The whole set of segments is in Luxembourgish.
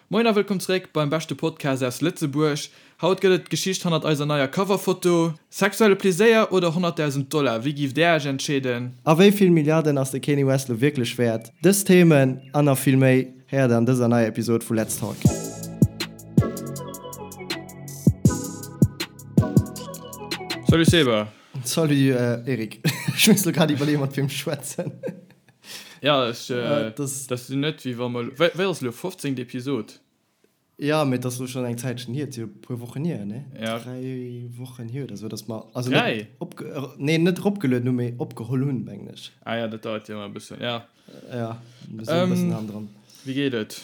Moien a wëllkomm zeréck beim beschte Podcast aus Lëtzebuerg. Haut gëtt et d'Geschicht hannert eiser neier Coverfoto. Sexuelle Pleséier oder 100.000 Dollar, wéi giff där Iech entscheeden? A wéi vill Milliarden ass de Kanye West lo wierklech wäert? Dës Themen an nach vill méi héiert der an dëser neier Episod vu Let's Talk. Salut Seba. Salut Eric. Ech muss lo grad iwwerleeën mat wiem ech schwätzen. Ja, ech, äh, das, das sinn net wéi wa mer, wéi, wéi ass elo, 15. Episod? Ja, mee et ass elo schonn eng Zäitchen hier, et si jo e puer Wochen hier, ne? Ja. 3 Wochen hier oder sou, dass mer, also net 3? opge, nee, net eropgelueden hunn, mee opgeholl hunn, mengen ech. Ah ja, dat dauert jo ëmmer e bëssen, ja. Ja, mir sinn e bëssen Ähm, hannendran. Wéi geet et?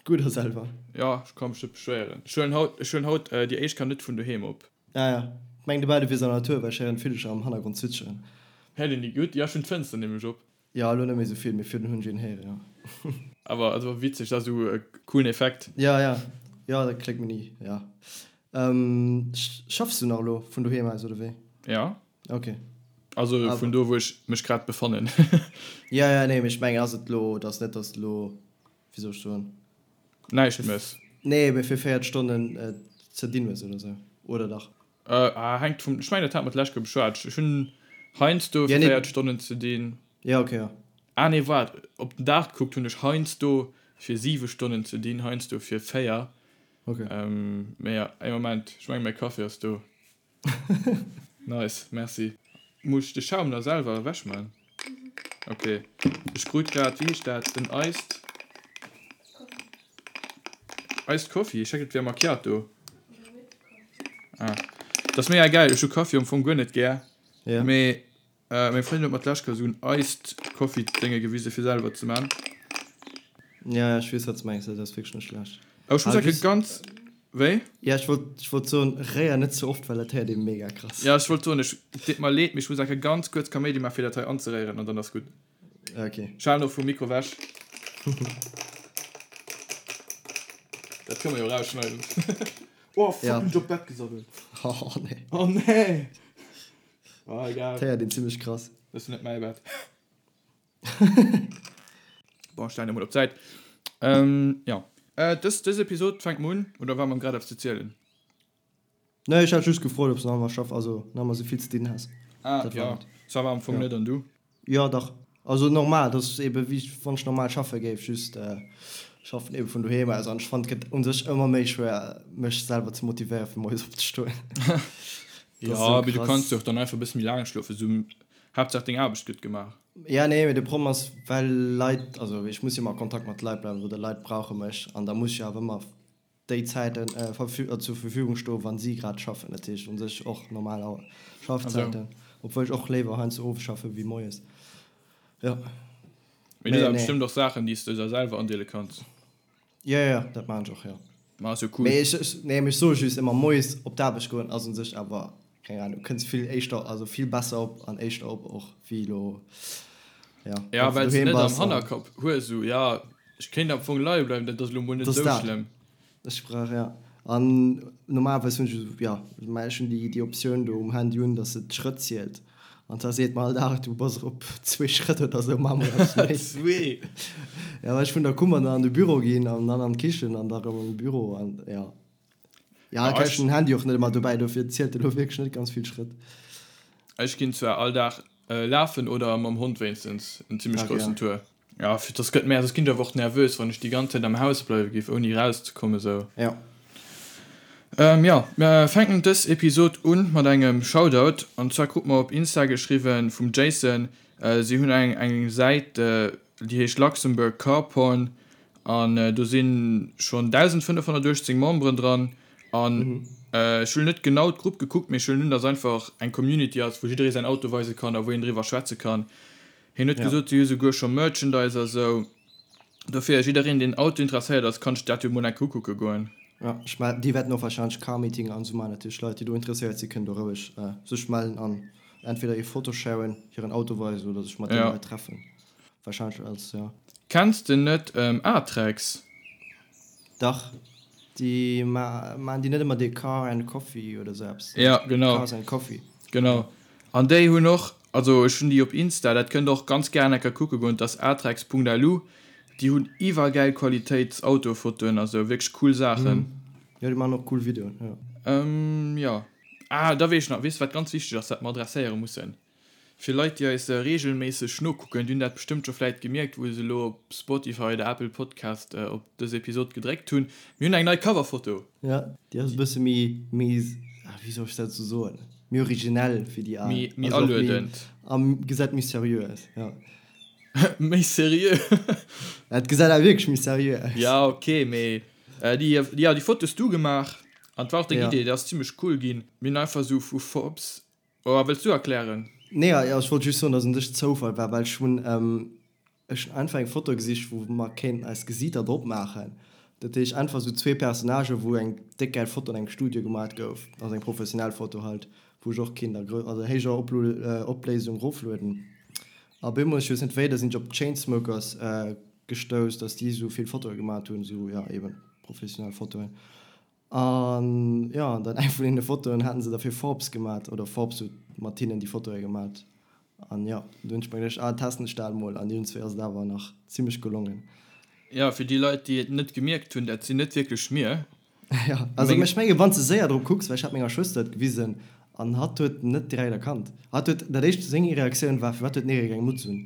Gutt, a selwer? Ja, ech ka mech net beschwéieren. Ech huelen haut, ech huelen haut déi éischt Kéier net vun doheem op. Ah ja, ech mengen dobäi du wiers an der Natur, well ech héieren d'Villecher am Hannergrond zwitscheren. Héiert een déi gutt? Jo, ech hunn d'Fënster nämlech op. Jo, elo net méi esou vill, mee virdrun hunn ech een héieren, jo. Awer also witzeg, dat ass esou e coolen Effekt. Ja, ja, jo, dat kléngt mir ni, ja. Schaffs du nach elo vun doheem aus, oder wéi? Ja. Ok. Also vun do, wou ech mech grad befannen. Ja, ja, nee, mee ech mengen, ass et elo, et ass net, dass de elo wéi soll ech soen? Näischt mëss. Nee, mee fir 4 Stonnen ze dinn hues oder sou, oder dach? Ah, hänkt vum, ech mengen dat hat mer d'lescht Kéier beschwat, ech hunn heiansdo fir 4 Stonnen ze dinn. Ja, ok, ja. Ah nee, waart, op den Dag gekuckt hunn ech heiansdo fir 7 Stonnen ze dinn, heiansdo fir 4. Ok. Mee ja, ee Moment, ech mengen mäi Kaffi ass do. Nice, merci. Muss ech de Schaum da selwer ewech man? Ok, ech krut grad, wéi heescht dat, en Iced Iced Coffee, ech hat et wär Macchiato. Ah, dat ass mega gäil, ech hu Kaffi am Fong guer net gär, mee Meng Frëndin huet mer d'lescht Kéier esou en Iced Coffee Dénge gewise fir selwer ze man. Ja, ja, ech weess wat s mengs, dat ass wierklech net schlecht. Awer ech muss soen, ganz, wéi? Ja, ech wollt, ech wollt soen, réier net ze oft, well dat héiert ee mega krass. Ja, ech wollt soen, ech, et deet mer leed, mee ech muss enke ganz kuerz Kaméidi man fir dat hei anzeréieren an dann ass gutt. Ok. Ech halen och vum Mikro wech. Dat kënne mer jo erausschneiden. Oh fuck, hunn ech op d'Bett gesabbelt. Oh nee. Oh nee. Ah, egal. D'héiert een zimmlech krass. Dat ass net mäi Bett. Bon, ech stellen emol op d'Säit. Ähm, ja. Äh, dës, dës Episod fänkt mer un, oder war mer grad eppes ze zielen? Nee, ech hat just gefrot, ob s nach ëmmer schaff, also nach ëmmer souvill ze dinn häss. Ah, Dat war ja. et. Ça va am Fong Ja. net, an du? Jo, dach. Also normal, dat ass ebe wéi wann ech normal schaffe géif, just schaffen ebe vun doheem aus an ech fannen et gëtt u sech ëmmer méi schwéier mech selwer ze motivéiere fir moies opzestoen. Jo, mee du kanns jo och dann einfach e bësse méi laang schlofen, esou Haaptsaach deng Aarbecht gëtt gemaach. Jo, nee, mee de Problem ass well Leit, also ech muss jo ëmmer a Kontakt mat Leit bleiwen oder Leit brauche mech an da muss ech jo awer ëmmer déi Zäiten zur Verfügung stoen, wa si grad schaffen. Dat heescht u sech och normal Schaffzäiten, obwuel ech och léiwer heiansdo owes schaffe wéi moies. Jo. Mee du hues awer bestëmmt och Saachen, déi s de der selwer andeele kanns. Jo, jo, dat maachen ech och, jo. Ma ass jo cool. Mee ech, nee, mee ech soe just ëmmer, moies op d'Aarbecht goen ass u sech awer, keng Ahnung, du kënns vill éischter, also vill besser op an éischter op och wéi elo, jo, Ja, wann s du well s doheem net am bass an. Hannerkapp hues, esou, jo, ech kéint am Fong leie bleiwen, dat ass elo mol net esou schlëmm. Ech brauch, ja. An normalerweis hunn ech esou, ja, mä ech hunn déi, déi Optioun do um Handy un, dass et d'Schrëtt zielt. An da seet mer all Dag, du bass op zwee Schrëtt oder esou, maache mer eppes méi. Zwee! Ja, well ech vun der Kummer dann an de Büro ginn an dann an d'Kichen an da erëm an de Büro an, ja. Ja, da ech hunn den Handy och net ëmmer dobäi, dofir zielt e lo wierklech net ganz vill Schrëtt. Ech ginn zwar all Dag lafen oder mam Hond wéinstens en zimmlech groussen Tour. Ja, fir dass gëtt mär, soss ginn ech awer och nervös, wann ech déi ganz Zäit am Haus bleiwe géif, ouni erauszekommen esou. Ja. Ähm, jo, mer fänken dës Episod un mat engem Shoutout. An zwar krut mer op Insta geschriwwen vum Jason. Si hunn eng eng Säit, déi heescht Luxembourg Car Porn an do si schonn 1.518 Memberen dran. An ech hunn net genau d'Grupp gekuckt, mee ech huelen un, dass einfach eng Community ass, wou jidderee säin Auto weise kann a wou een driwwer schwätze kann. Hien huet gesot, si hu souguer scho Merchandise a sou. Dofir, jiddereen, deen Auto interesséiert ass, kann sech dat jo mol eng Kéier ukucke goen. Jo, ech mell, déi wäerten och wahrscheinlech Car-Meeting an esou maachen. Natierlech Leit, déi do interesséiert sinn, kënnen do roueg sech mellen an entweder hir Foto sharen, hiren Auto weisen oder sech mat deene Leit treffen. Wahrscheinlech als, jo. Kenns de net Atrex? Dach, déi maan déi net ëmmer dee Car and Coffee oder sou eppes? Ja, genau. Cars and Coffee. Genau. An déi hunn och, also ech hunn déi op Insta, dat kënnt der och ganz gären eng Kéier kucke goen, dat ass atrex.lu. Déi hunn iwwergäil Qualitéits Autofotoen a sou, wierklech cool Saachen. Jo, déi maachen och cool Videoen, jo. Jo. Ah, da weess ech nach, weess de wat ganz wichteg ass, wat mer adresséiere mussen? Fir Leit déi eis regelméisseg nokucken, déi hunn dat bestëmmt scho vläit gemierkt wou se elo op Spotify oder Apple Podcast op dës Episod gedréckt hunn, mir hunn eng nei Coverfoto! Jo, déi ass e bësse méi, méi, wéi soll ech dat esou soen, méi originell wéi déi al. Méi, méi aluedend. A gesäit méi seriö aus, jo. Méi seriö? Et gesäit awer wierklech méi seriö aus. Ja, ok, mee déi, jo, déi Foto hues du gemaach an et war och deng Idee, déi ass zimmlech cool ginn. Mir hunn einfach esou vu Forbes Oh, wëlls du erklären? Nee, ech wollt just soen, dass un sech Zoufall war, well ech hunn, ech hunn einfach eng Foto gesicht, wou mer kéinten eis Gesiiter drop maachen. Dat heescht einfach esou zwee Personnagen, wou eng déck gäil Foto an engem Studio gemat gouf, also eng professionell Foto halt, wou ech och kinnt a also héijer Opléisung roflueden. A bemol, ech weess net wéi, da sinn ech op d'Chainsmokers gestouss, dass déi esou vill Fotoe gemat hunn, esou, jo, eben professionell Fotoen. An jo, an dann eng vun deene Fotoen haten se da fir Forbes gemat, oder Forbes huet mat hinnen déi Fotoe gemat. An jo, du hunn ech mer geduecht, ah testen ech dat mol, an iergendzwéi ass et awer nach zimmlech gelongen. Jo, fir déi Leit, déi et net gemierkt hunn, dat sinn net wierklech mir. Jo, also ech menge wann s de séier drop kucks, well ech hat menger Schwëster et gewisen an hatt huet net direkt erkannt. Hatt huet, dat éischt, seng Reaktioun war, firwat huet den Eric eng Mutz un?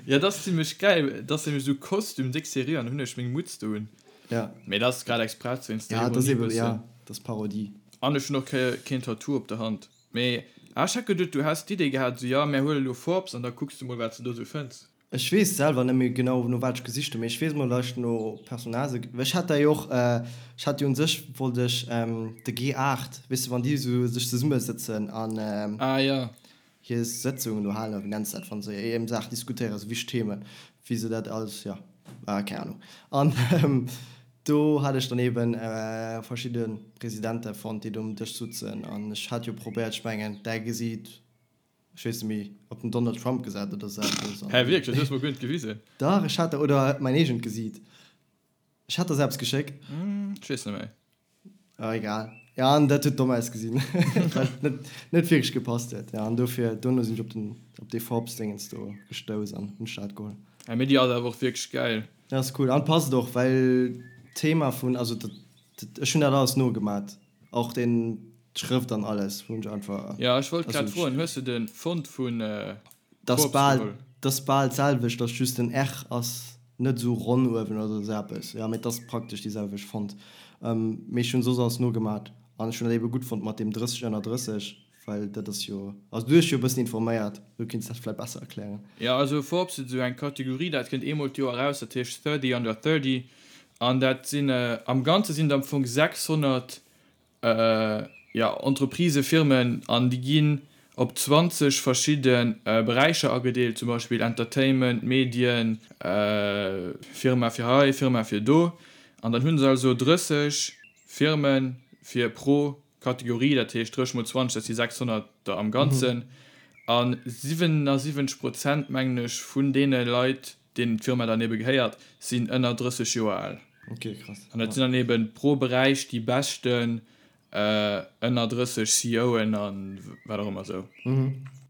Jo, dat ass zimmlech gäil, dat ass nämlech esou Kostüm, déck seriö, an hunn ech meng Mutz do un. Ja. Mee dat ass grad express wéinst der Ja, dat ass Ironie eben, ja, bëssen. dat ass Parodie. An ech hunn och keen Tattoo op der Hand. Mee ah, ech hat geduet du häss d'Idee gehat esou, jo mär huele lo Forbes an da kucks du mol wat s de do esou fënns. Ech weess selwer net méi genau no wat ech gesicht hunn, mee ech weess mol dat ech no Personnagë, well ech hat da jo och, ech hat jo un sech wollt ech de G8, weess de wann déi esou sech zesummesëtzen an Ah jo. hir Sëtzungen do halen, oder wéi nenns de dat, wa se ëm Saachen diskutéieren, esou wichteg Themen, wéi se dat alles, jo, keng Ahnung. An do hat ech dann eeben verschidde Presidente fonnt, déi do um Dësch sutzen. An ech hat jo probéiert, ech mengen, däi Gesiit, ech weess net méi, op den Donald Trump gesat oder esou eppes. Hä, wierklech? Dat hues de mer guer net gewisen. Dach, ech hat der, oder mäin eegent Gesiit. Ech hat der se eppes geschéckt. Ech weess net méi. Ah, egal. Ja, an dat huet domm ausgesinn, well et net, net wierklech gepasst huet. Ja, an dofir, dono sinn ech op den, op dee Forbes-Dingens do gestouss an hunn ech dat geholl. Ja, mee déi ass awer och wierklech gäil. Ja, ass cool. An passt och, well d'Thema vun, also dat, dat, ech hunn dat alles nogemat, och den, d'Schrëft an alles hunn ech einfach. Ja, ech wollt grad froen, hues de de Font vun Forbes geholl? Dat ass bal d'selwecht, dass just den R ass Net esou ronn uewen oder esou eppes, jo, mee et ass praktesch déi selwecht Font. Mee ech hunn soss alles nogemat an ech hunn dat ebe gutt fonnt mat deem 30 ënner 30, well dat ass jo, also du hues dech jo e bëssen informéiert, du kinns dat vläit besser erklären. Jo, also Forbes huet esou eng Kategorie, dat kënnt eemol d'Joer eraus, dat heescht 30 under 30 an dat sinn, am Ganze sinn et am Fong 600 jo, Entreprisë, Firmen, an déi ginn op 20 verschidde Beräicher agedeelt, zum Beispill Entertainment, Medien, Firma fir hei, Firma fir do. An dann hu se also 30 Firme fir pro Kategorie, dat heescht 30 mol 20, dat si 600 der am Ganzen. A 77 Prozent, mengen ech, vun deene Leit, deenen d'Firma dann ebe gehéiert, sinn ënner 30 Joer al. Ok, krass. An dat sinn dann eben pro Beräich déi beschten ënner 30 CEOen a wat och ëmmer esou.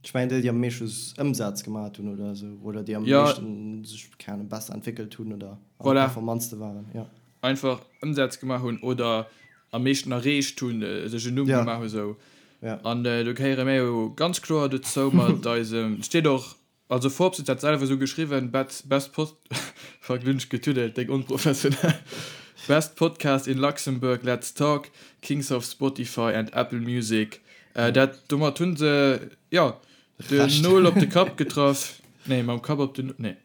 Ech mengen déi, déi am meeschte Ëmsaz gemat hunn oder esou, oder déi am meeschten sech, keng Ahnung, besser entwéckelt hunn oder am performantste waren, jo. Einfach Ëmsaz gemaach hunn oder am meeschten erreecht hunn, sech en Numm gemaach hu sou. An do gehéiere mir jo ganz kloer dozou mat eisem, et steet och Also Forbes huet dat selwer esou geschriwwen, Best Pod fuck lo hunn ech getuddelt, déck onprofessionell, Best Podcast in Luxembourg, Let's Talk, Kings of Spotify and Apple Music. Dat domat hunn se jo den Nol op de Kapp getraff, nee mam Kapp op den, nee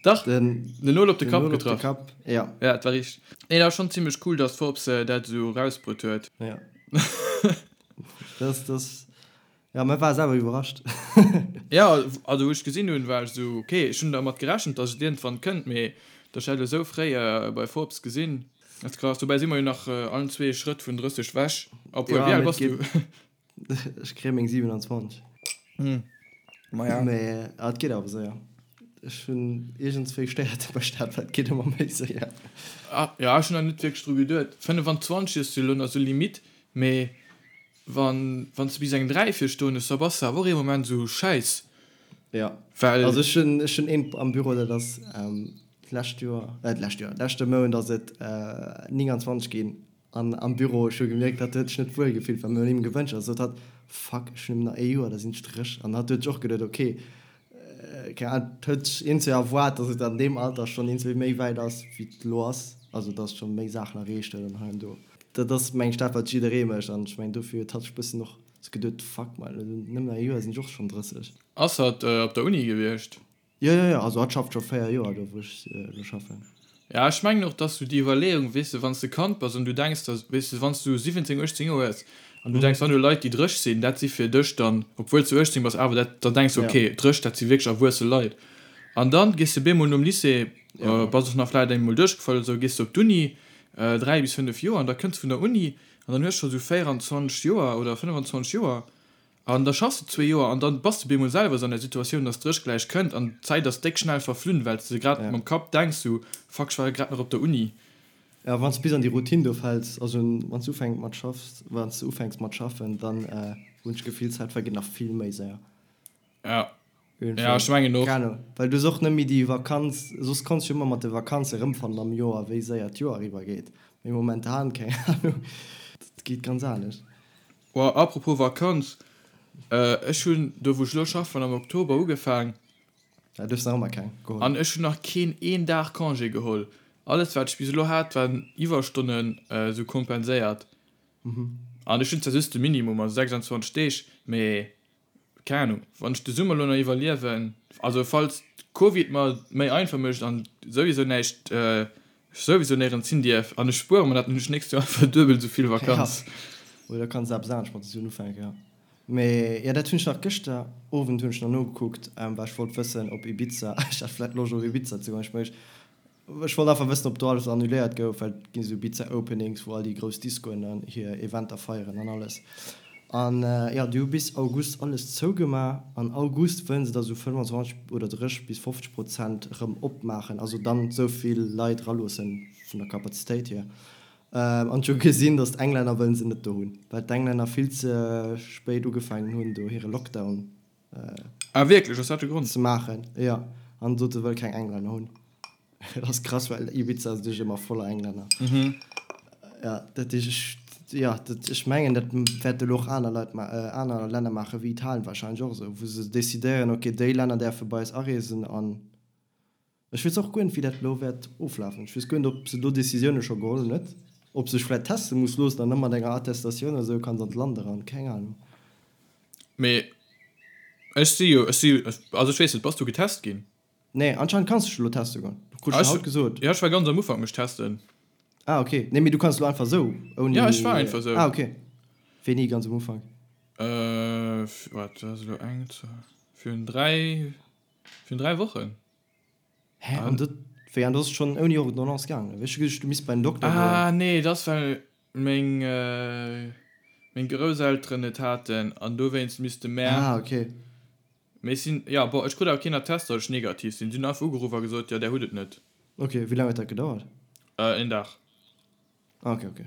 dach den Nol op de Kapp getraff, jo dat war richteg. Nee dat ass schonn zimmlech cool, datt Forbes dat esou erausbruet huet. Jo dat ass Ja, mä war selwer iwwerrascht. Ja, also wou ech gesinn hunn, war ech esou, ok, ech hunn dermat gerechent, dass et iergendwann kënnt, mee dass ech dat elo esou fréi bei Forbes gesinn, ass krass. Dobäi si mer jo nach allen zwee ee Schrëtt vun 30 wech. Obwuel, wéi al bass du? Ech kréie meng 27. Maja. Mee et geet awer séier. Ech hunn iergendswéi stéiert mech dat, well et geet ëmmer méi séier. Ah, ja, ech hunn nach net wierklech dru geduet. 25 ass jo elo nach esou limite, mee Wann wann s de bis eng 3 vir stoen hues, da bass de awer och ee Moment esou, Schäiss. Jo, well. Also ech hunn, ech hunn een am Büro, dat ass d'lescht Joer, d'lescht Joer, leschte Mount ass et 29 ginn an am Büro, ech hu gemierkt, hatt huet sech net wuel gefillt, well mir hunn him gewënscht a sot hatt, Fuck, ech hunn nëmmen nach ee Joer, da sinn ech 30. An hatt huet sech och geduet, ok, keng Ahnung, et huet sech iergendwéi erwaart, datt et an deem Alter schonn iergendwéi méi wäit ass, wéi et elo ass, also datt schonn méi Saachen erreecht huet an hei an do. Dat ass, meng ech, dat, wat jidderee mécht an ech mengen, dofir huet hatt sech e bëssen och sou geduet, Fuck man, nëmmen nach ee Joer, sinn ech och schonn 30. Ass hatt op der Uni gewiescht? Jo, jo, jo, also hatt schafft scho 4 Joer do wou ech elo schaffen. Ja, ech mengen och, dass sou déi Iwwerleeung, weess de, wann s de Kand bass an du denks der, weess de, wann s du 17, 18 Joer hues an du denks, wann do Leit, déi 30 sinn, dat si fir dech dann, obwuel s du 18 bass, awer dat, da denks du, okay, 30, dat si wierklech erwuesse Leit. An dann gees de bemol nom Lycée, bass och nach vläicht eemol duerchgefall oder sou, gees de op d'Uni, 3 bis 5 Joer, an da kënns vun der Uni an dann hues scho sou 24 Joer oder 25 Joer An da schaffs de zwee Joer an dann bass de bemol selwer esou an der Situatioun, dass d'Dréch gläich kënnt an d'Zäit ass déck schnell verflunn, well s de grad mam Kapp denks sou, Fuck, ech war jo grad nach op der Uni. Jo, wann s de bis an déi Routine do fäls, also wann s du ufänks mat schaffs, wann s de ufänks mat schaffen, dann hunn ech d'Gefill, d'Zäit vergeet nach vill méi séier. Ja, ja, ech mengen och. Keng Ahnung, well du hues och net méi déi Vakanz, soss konns du jo ëmmer mat de Vakanze erëmfannen am Joer, wéi séier d'Joer eriwwer geet, mee momentan, keng Ahnung, dat geet ganz anescht. Oh, apropos Vakanz, ech hunn do wou ech elo schaffen am Oktober ugefaang. Ja, du hues nach ëmmer keng geholl. An ech hunn nach keen een Dag Congé geholl. Alles wat ech bis elo hat waren Iwwerstonnen esou kompenséiert. An ech hunn zwar just de Minimum, also 26 Deeg, mee Keng Ahnung, wann ech de Summer lo nach iwwerliewen, also falls Covid mer méi einfach mécht an souwisou näischt, ech souwisou néierens hin dierf an ech spuere mer dat, dann hunn ech nächst Joer einfach duebel esou vill Vakanz. Ja, oder kanns eppes anescht mat de Suen ufänken, jo. Mee jo, dat hunn ech nach gëschter Owend hunn ech nach nogekuckt, well ech wollt wëssen op Ibiza, ech hat vläit Loscht op Ibiza ze goen, ech mech Ech wollt einfach wëssen op do alles annuléiert gouf, well et ginn esou Ibiza Openings wou all déi grouss Discoen dann hir Eventer feieren an alles. An jo, déi hu bis August alles zougema. An August wëllen se da sou 25 oder 30 bis 50 Prozent erëm opmaachen, also dann esou vill Leit eraloossen vun der Kapazitéit hier. An ech hu gesinn, datt d'Englänner wëllen se net do hunn, well d'Englänner vill ze spéit ugefaangen hunn do hire Lockdown Ah wierklech, ass dat de Grond? Ze maachen, jo. An sot se wëll keng Englänner hunn. Dat ass krass, well Ibiza ass duerch ëmmer voller Englänner. Jo, dat heescht ech, jo, dat, ech mengen dat wäerte elo och aner Leit ma, aner Länner maachen, wéi Italien wahrscheinlech och esou, wou se decidéieren, ok, déi Länner däerfe bei eis areesen an Ech weess och guer net, wéi dat elo wäert oflafen. Ech weess guer net, ob se do Decisioune scho geholl hunn, net? Ob sech vläicht teste muss loossen an da mat enger Attestatioun oder esou kanns an d'Land eran. Keng Ahnung. Mee ech si jo, ech si, also ech weess net, bass du getest ginn? Nee, anscheinend kanns du dech elo teste goen. Krut ech haut gesot. Jo, ech war ganz am Ufank mech testen. Ah, ok. Nee, mee du kanns elo einfach esou, ouni. Jo, ech war einfach esou. Ah, ok. Wéini ganz am Ufank? Waart, dat ass elo eng, zwou, virun 3. Virun 3 Wochen. Hä? An dat, wéi, an dat ass schonn ouni Ordonnance gaangen? Ech hu geduecht, du misst bei den Dokter goen. Ah nee, dat ass well meng, meng Grousselteren et haten an dowéinst misste mär. Ah, okay. Mee ech sinn, jo, bon, ech krut awer keen Attest, datt ech negativ sinn. Si hunn einfach ugeruff a gesot, jo, där hutt et net. Okay, wéi laang huet dat gedauert? Een Dag. Ah, okay, okay.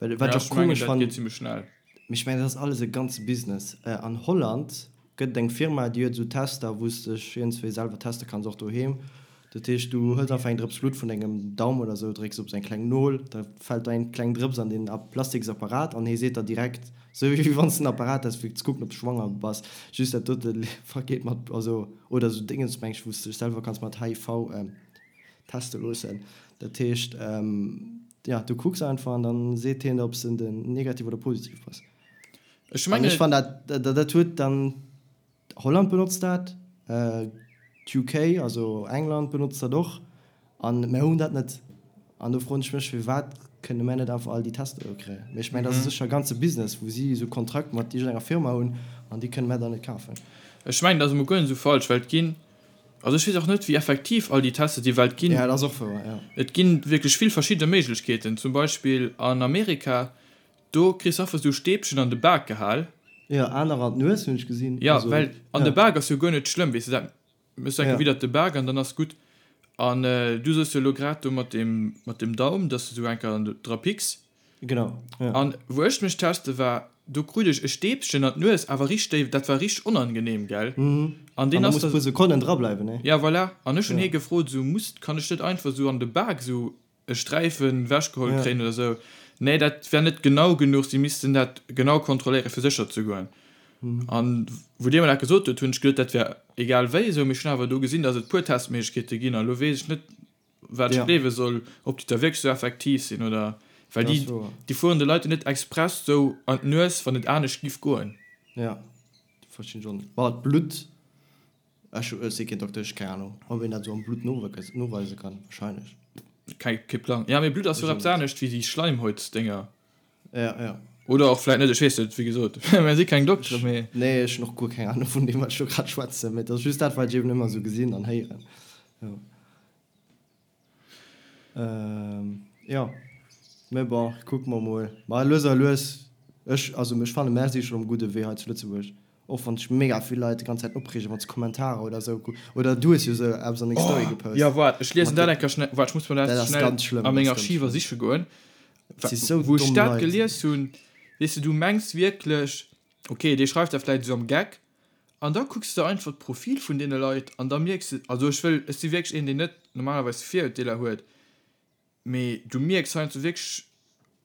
Well wat ech och komesch fannen, mee ech mengen dat ass alles e ganze Business. An Holland gëtt et eng Firma déi huet esou Tester wou s dech iergendswéi selwer teste kanns, och doheem. Dat heescht du hëls einfach eng Drëps Blutt vun dengem Daum oder esou, drécks op esou eng kleng Nol, da fält do eng kleng Drëps an deen plastiks Apparat an hee seet der direkt, esou wéi wann s de en Apparat häss fir ze kucken ob s de schwanger bass, just dat dote vergeet mat, also oder esou Dingens meng ech wou s dech selwer kanns mat HIV teste loossen. Dat heescht, jo, du kucks einfach an dann seet hien der, ob s de negativ oder positiv bass. Ech mengen. An ech fannen dat, dat huet dann, Holland benotzt dat, d'UK, also England benotzt dat och, an mär hunn dat net. An do froen ech mech, firwat kënne mär net einfach all déi Tester do kréien? Mee ech mengen, dat ass sécher e ganze Business, wou si esou Kontrakt mat iergendenger Firma hunn an déi kënne mär dann net kafen. Ech mengen, dat ass emol guer net esou falsch, well et ginn Also ech weess och net wéi effektiv all déi Tester déi well et ginn. Ja, dat ass och wouer, ja. Et ginn wierklech vill verschidde Méiglechkeeten. Zum Beispill an Amerika, do kriss einfach esou Stäbchen an de Bak gehal. Jo, anerer an d'Nues hunn ech gesinn. Jo, well an de Bak ass jo guer net schlëmm, weess de, dat méchs du enke widder de Bak an dann ass gutt. An du soos jo elo grad do mat deem, mat dem Daum, dass de sou enker dra picks. Genau, jo. An wou ech mech teste war. do krut ech e Stäbchen an d'Nues, awer richteg déif, dat war richteg onangenehm, gell? An deen ass da. An da muss puer Sekonnen dra bleiwen, ne? Ja, voilà. An ech hunn hie gefrot, esou, muss, kann ech net einfach esou an de Bak esou e Sträifen ewechgeholl kréien oder esou? Nee, dat wär net genau genuch, si missten dat genau kontrolléieren, fir sécher ze goen. An wou dee mer dat gesot huet, hunn ech geduet, dat wär egal wéi esou, mee ech hunn awer do gesinn, datt et puer Testméiglechkeete ginn, an elo weess ech net, wat ech gleewe soll, ob déi da wierklech esou effektiv sinn oder, well déi, déi fueren de Leit jo net express esou an d'Nues, wann et anescht giff goen. Jo, dat verstinn ech och net. Bon, d'Blutt, ech si keen Dokter, ech hu keng Anung, ob een dat esou am Blutt noweise kann, wahrscheinlech. Keng, kee Plang. Jo, mee Blutt ass jo och eppes anescht wéi déi Schleimhäutsdénger. Ja, ja. Oder och vläit net, ech weess net, wéi gesot, mir si keng Dokteren, mee. Nee, ech hunn och guer keng Anung vun deem, wat ech do grad schwätzen, mee et ass just dat, wat ech eben ëmmer esou gesinn an héieren. Jo. Jo, mee bon, kucke mer mol. Ma lues a lues, ech, also ech fanne mär si schonn um gudde Wee hei zu Lëtzebuerg. Och wann sech mega vill Leit déi ganz Zäit opreegen, wann se Kommentarer oder esou ku, oder du hues jo esou eppes an deng Story gepost. Jo, waart, ech liesen dat eng Kéier schnell, waart, ech muss mer dat schnell a meng Archiver siche goen. Wou ech dat gelies hunn, weess de, du mengs wierklech, ok, dee schreift dat vläicht esou am Geck, an da kucks de einfach d'Profil vun deene Leit an da mierks de, also ech wëll, ech si wierklech een, deen net normalerweis Virurteeler huet, Mee du mierks heiansdo wierklech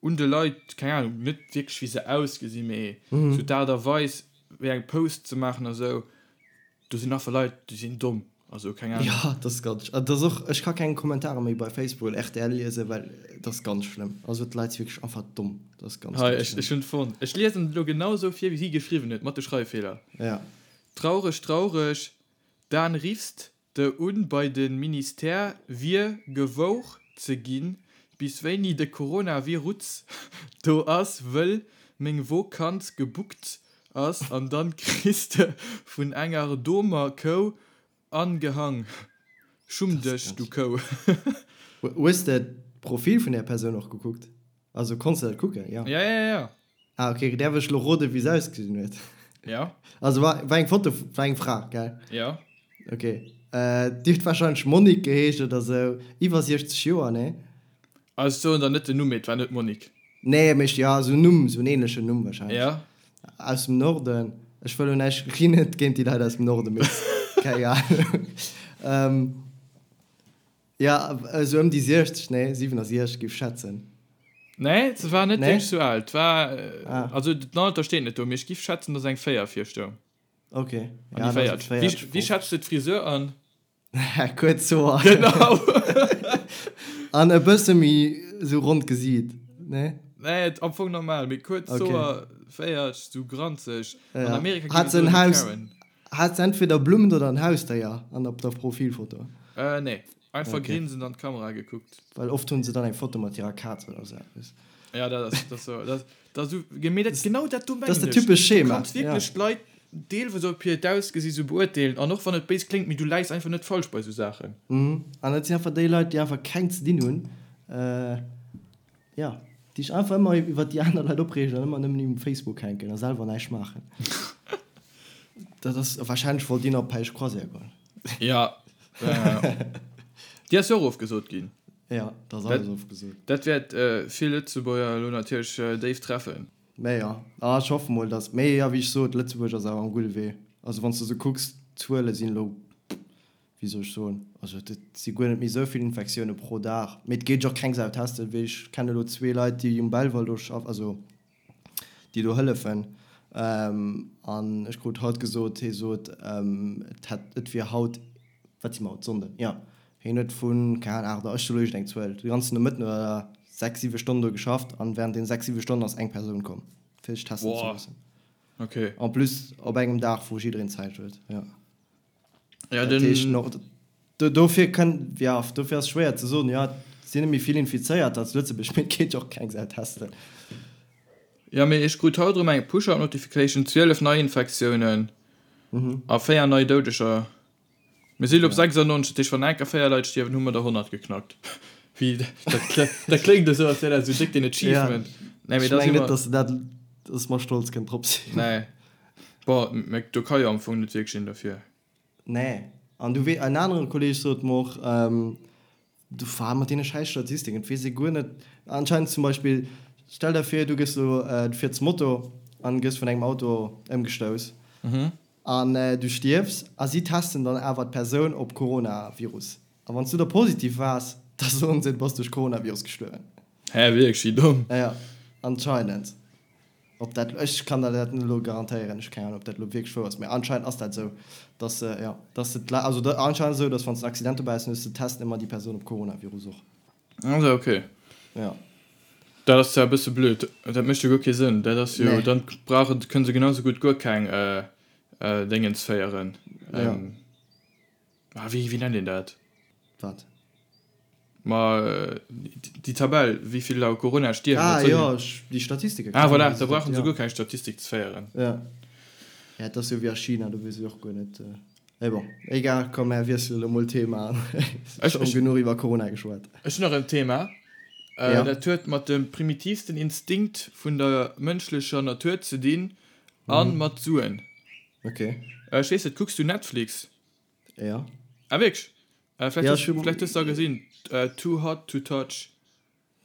un de Leit, keng Ahnung, net wierklech wéi se ausgesinn, mee sou d'Aart a Weis wéi eng Post ze maachen a sou, do sinn einfach Leit, déi sinn domm, also keng Ahnung. Jo, dat ass ganz, dat ass och, ech ka keng Kommentare méi bei Facebook oder rtl liesen, well dat ass ganz schlëmm. Also d'Leit si wierklech einfach domm, dat ass ganz, Hei, ganz ech, schlëmm. ech hunn et fonnt. Ech liesen et elo genau sou vir, wéi si geschriwwen huet, mat de Schreiffeeler. Ja. Traureg, traureg, Dan riffst De un bei de Ministère wier gewouch ze ginn, bis wéini de Coronavirutz do ass, wëll meng Vokanz gebuckt ass an dann kriss de vun enger domer Kou angehang. Schumm dech du Kou. Hues de d'Profil vun där Persoun och gekuckt? Also konns de dat kucken? Jo. Ja, ja, ja. Ah ok, däerf ech lo roden wéi se ausgesinn huet? Ja. Also war, war eng Foto, war eng Fra, gell? Ja. Ok. Déi huet wahrscheinlech Monique geheescht oder sou, iwwer 60 Joer, nee? Also ech soen der net den Numm, mee et war net Monique. Nee, mee ja, sou en Numm, sou en ähnlechen Numm wahrscheinlech. Ja. Aus dem Norden. Ech wëll lo näischt, ech ginn net géint déi Leit aus dem Norden, mee keng Ahnung. Ja, esou ëm déi 60, nee, 67 géif ech schätzen. Nee, se war net wierklech sou al. War, ah. Also den Alter steet net do, mee ech giff schätzen, dass eng 4 vir stoung. Ok. An déi 40. Wéi, wéi schätz de d'Frisur an? Kuerz Hoer. Genau. An e bësse méi sou ronnt Gesiit, nee? Nee, am Fong normal, mee kuerz Hoer, 40, sou granzeg. An Amerika ginn et esou Karen. Hat se entweder Blummen oder en Hausdéier an op der Profilfoto? Äh nee, einfach okay. grinsend an d'Kamera gekuckt. Well oft hunn se dann eng Foto mat hirer Kaz oder sou eppes. Ja, dat ass, dat ass sou, dat, dat sou, mee dat, genau dat do mengen ech. Dat ass dat typesch Schema. Du kanns wierklech ja. d'Leit deelweis op hiert Ausgesi sou beurteelen an och wann et béis kléngt, mee du läis einfach net falsch bei sou Saachen. Mhm, an dat sinn einfach déi Leit, déi einfach keng ze dinn hunn. Äh. Jo, déi sech einfach ëmmer iwwert déi aner Leit opreegen an ëmmer nëmmen um Facebook hänken a selwer näischt maachen. Dat ass, wahrscheinlech wollt deen op Päisch Croisière goen. Jo, déi ass jo och ofgesot ginn. Jo, dat ass alles ofgesot. Dat wäert vill Lëtzebuerger elo natierlech déif treffen. Mä jo, ech hoffe mol, datt, mee jo, wéi ech sot, Lëtzebuerg ass awer am gudde Wee. Also wann s de esou kucks, d'Zuele sinn elo wéi soll ech soen, also et si guer net méi esou vill Infektioune pro Dag, mee et geet och keng Sau testen, wéi ech kenne elo zwee Leit, déi um Belval do schaffen, also déi do hëllefen, an ech krut haut gesot, hie sot, et hätt, et wier haut, wat si mer haut, Sonnden, jo, hien huet vun, keng Ahnung, 8 Auer, ech soe elo iergendeng Zuel, de ganzen Nomëtten oder 6, 7 Stonnen do geschafft an während deenen 6, 7 Stonnen ass eng Persoun komm, fir sech testen ze loossen. Okay. En plus op engem Dag, wou jiddereen Zäit huet, jo. Ja, den. Dat heescht noch, dofir kënn, ja, dofir ass schwéier ze soen, jo, et sinn net méi vill Infizéierter zu Lëtzebuerg, mee et geet jo och keng Sau testen. Ja, mee ech krut haut erëm eng Push-Up-Notification, 12 Neiinfektiounen a 4 nei Doudeger. Mir si lo op 96, dat heescht, wann enker 4 Leit stierwen, hu mer der 100 geknackt. Wéi, dat, dat kléngt esou, als wär dat esou déck den Achievement. Nee, mee da si mer. Ech mengen net, dass dat, dass mer stolz kënnen drop sinn. Nee. Bon, mä do ka jo am Fong net wierklech een derfir. Nee. An du wee, en anere Kolleeg sot mer och, du war mat deene schäiss Statistiken, et weess ee guer net, anscheinend zum Beispill, stell der vir, du gëss elo, du fiers Moto. an gëss vun engem Auto ëmgestouss an du stierfs a si testen dann awer d'Persoun op Coronavirus a wann s du da positiv waars, da soen se du bass duerch Coronavirus gestuerwen. Hä, wierklech? Wéi domm. Jo, anscheinend. Ob dat, ech kann der dat net elo garantéieren, ech hu keng Ahnung, ob dat elo wierklech wouer ass, mä anscheinend ass dat esou, dass se, jo, dass se d'Leit, also anscheinend ass et esou, dass wann s de en Accident dobäi hues, dann hues de testen ëmmer déi Persoun op Coronavirus och. Also ok. Jo. Dat ass zwar e bësse blöd, dat mécht jo guer kee Sënn. Dat ass jo, Nee. dann brauche, kënne se genau sou gutt guer keng Déngens féieren. Jo. Ah, wéi, wéi nennt een dat? Wat? Ma déi Tabell, wéi vill u Corona stierwen. Ah jo, déi Statistiken. Ah voilà, da brauche se guer keng Statistik ze féieren. Jo. Ja, et ass jo wéi a China, do weess ech och guer net. Mee bon, egal, komm mär wiesselen elo mol Thema. Ech hunn genuch iwwer Corona geschwat. Ech hunn nach en Thema. Ja. Dat huet mat dem primitivsten Instinkt vun der mënschlecher Natur ze dinn a mat Suen. Ok. Ech weess net, kucks du Netflix? Ja. Ah wierklech? Vläicht Ja, hues ech hu. vläicht hues de da gesinn, Too Hot To Touch.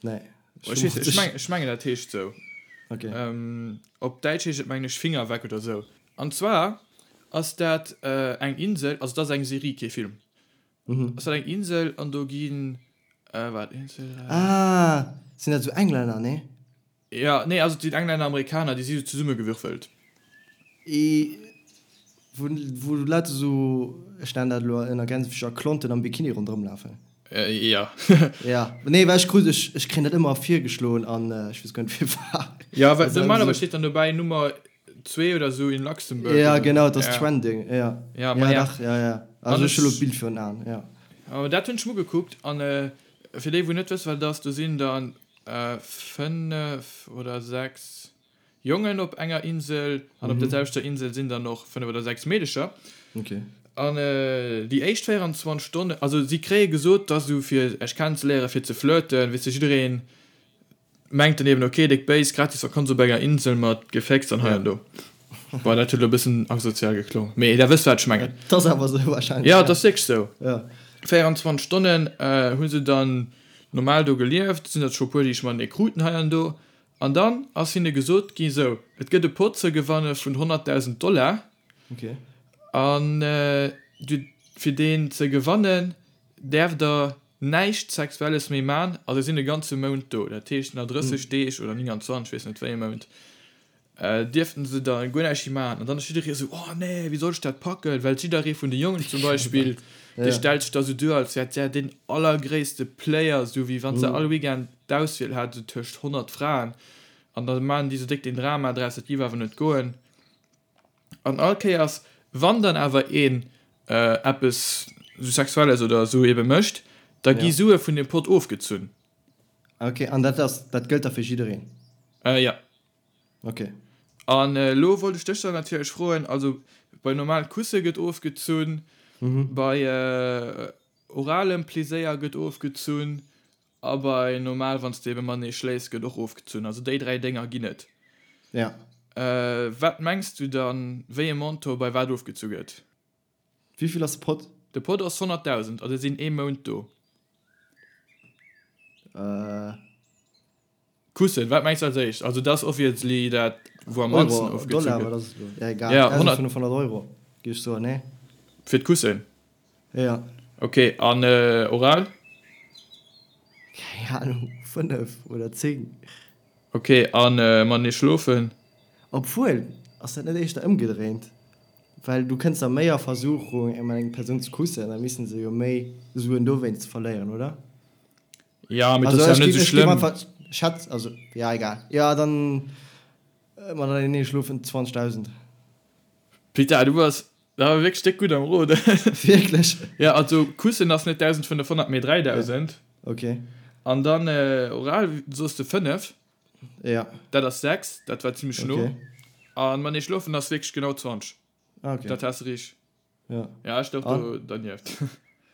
Nee. Ech weess net, ech meng, ech mengen dat heescht sou. Ok. Op Däitsch heescht et mengen ech Finger weg oder sou. An zwar ass dat eng Insel, also dat ass eng Serie, kee Film. Ass dat eng Insel an do ginn, waart, een, zwee, dräi. Ah, sinn dat sou Englänner, nee? Jo, nee, also et sinn Englänner, Amerikaner, déi si sou zesummegewürfelt. I, Wou, wou Leit esou, ech nennen dat elo ënner Gänsefüßcher, Klonten am Bikini ronderëm lafen. Jo. Ja, nee, well ech krut, ech, ech kréien dat ëmmer virgeschloen an ech weess guer net firwat. Jo, well normalerweis steet dann dobäi Nummer zwee oder sou in Luxembourg. Ja, genau, et ass trending, ja. Ja, Ja, ma ja. dach, ja, ja. Also ech hu elo d'Bild virun Aen, ja. Awer dat hunn ech mer ugekuckt an fir déi wou net wësse wat et ass, do sinn dann 5 oder 6 Jongen op enger Insel an op der selwechter Insel sinn dann och 5 oder 6 Meedecher. Okay. An déi éischt 24 Stonnen, also si kréie gesot, dass esou fir Iech kennenzeléieren, fir ze flirten, weess de, jiddereen mengt dann eben, okay, déck béis, gratis Vakanz op enger Insel mat Gefécks an hei an do. Bon, dat huet elo e bëssen asozial geklong, mee der wësst wat ech mengen. Et ass awer esou wahrscheinlech. Jo, et ass wierklech esou. Ja. 24 Stonnen hu se dann normal do gelieft, sinn der scho puer déi ech matenee kruten hei an do. An dann ass hinne gesot gi, sou, et gëtt e Pot ze gewanne vun 100.000 Dollar, an du, fir deen ze gewannen, däerft der näischt Sexuelles méi man, a se sinn e ganze Mount do, dat heescht nach 30 Deeg oder 29, weess net wéi e Mount. Dierften se da guer näischt méi maachen. An dann ass jidderee esou, Oh nee, wéi soll ech dat packen? Well jidderee vun de Jongen zum Beispill, dee stellt sech da sou duer, als wär der deen allergréisste Player, sou wéi wann se all Weekend d'Auswiel hat, sou tëscht 100 Fraen. An da maachen déi sou déck den Drama draus, dat géif awer net goen. An all Kéiers, wann dann awer een eppes sou Sexuelles oder sou ebe mécht, da gi Sue vun deem Pott ofgezunn. Ok, an dat ass, dat gëllt da fir jiddereen? Jo. Ok. An elo wollt ech dech dann natierlech froen, also bei normal Kusse gëtt ofgezunn, bei oralem Pleséier gëtt ofgezunn a bei normal wann s de ebe matenee schléifs gëtt och ofgezunn. Also déi 3 Dénger ginn et. Ja. Wat mengs du dann, wéi e Montant bei wat ofgezu gëtt? Wéivill ass de Pott? De Pott ass 100.000 a se sinn ee Mount do. Kussen, wat mengs du als éischt? Also dat ass obviously dat wou am mannsten Euro, ofgezu Dollar, gëtt. wat ass et elo? Ja egal, Ja, 100. 1.500 Euro géif ech soen, nee? Fir d'Kussen? Ja. Ok, an oral? Keng Ahnung, 5 oder 10. Ok, an matenee schlofen? Obwuel, ass dat net éischter ëmgedréint? Well du kënns da méi a Versuchung eng eng Persoun ze kussen, da missten se jo méi Suen dowéinst verléieren, oder? Ja, mee dat ass ja net esou schlëmm. Schätz, also, ja, egal. Ja, dann matenee schlofen 20.000. Pita, du bass awer wierklech déck gutt am Roden. Wierklech? Ja, also kussen ass net 1.500, mee 3.000. Ok. An dann oral soss de 5. Ja. Dat ass 6, dat war zimmlech no. Ok. An matenee schlofen ass wierklech genau 20. Ah, ok. Dat has de richteg. Ja. Ja, ech louch do dernieft.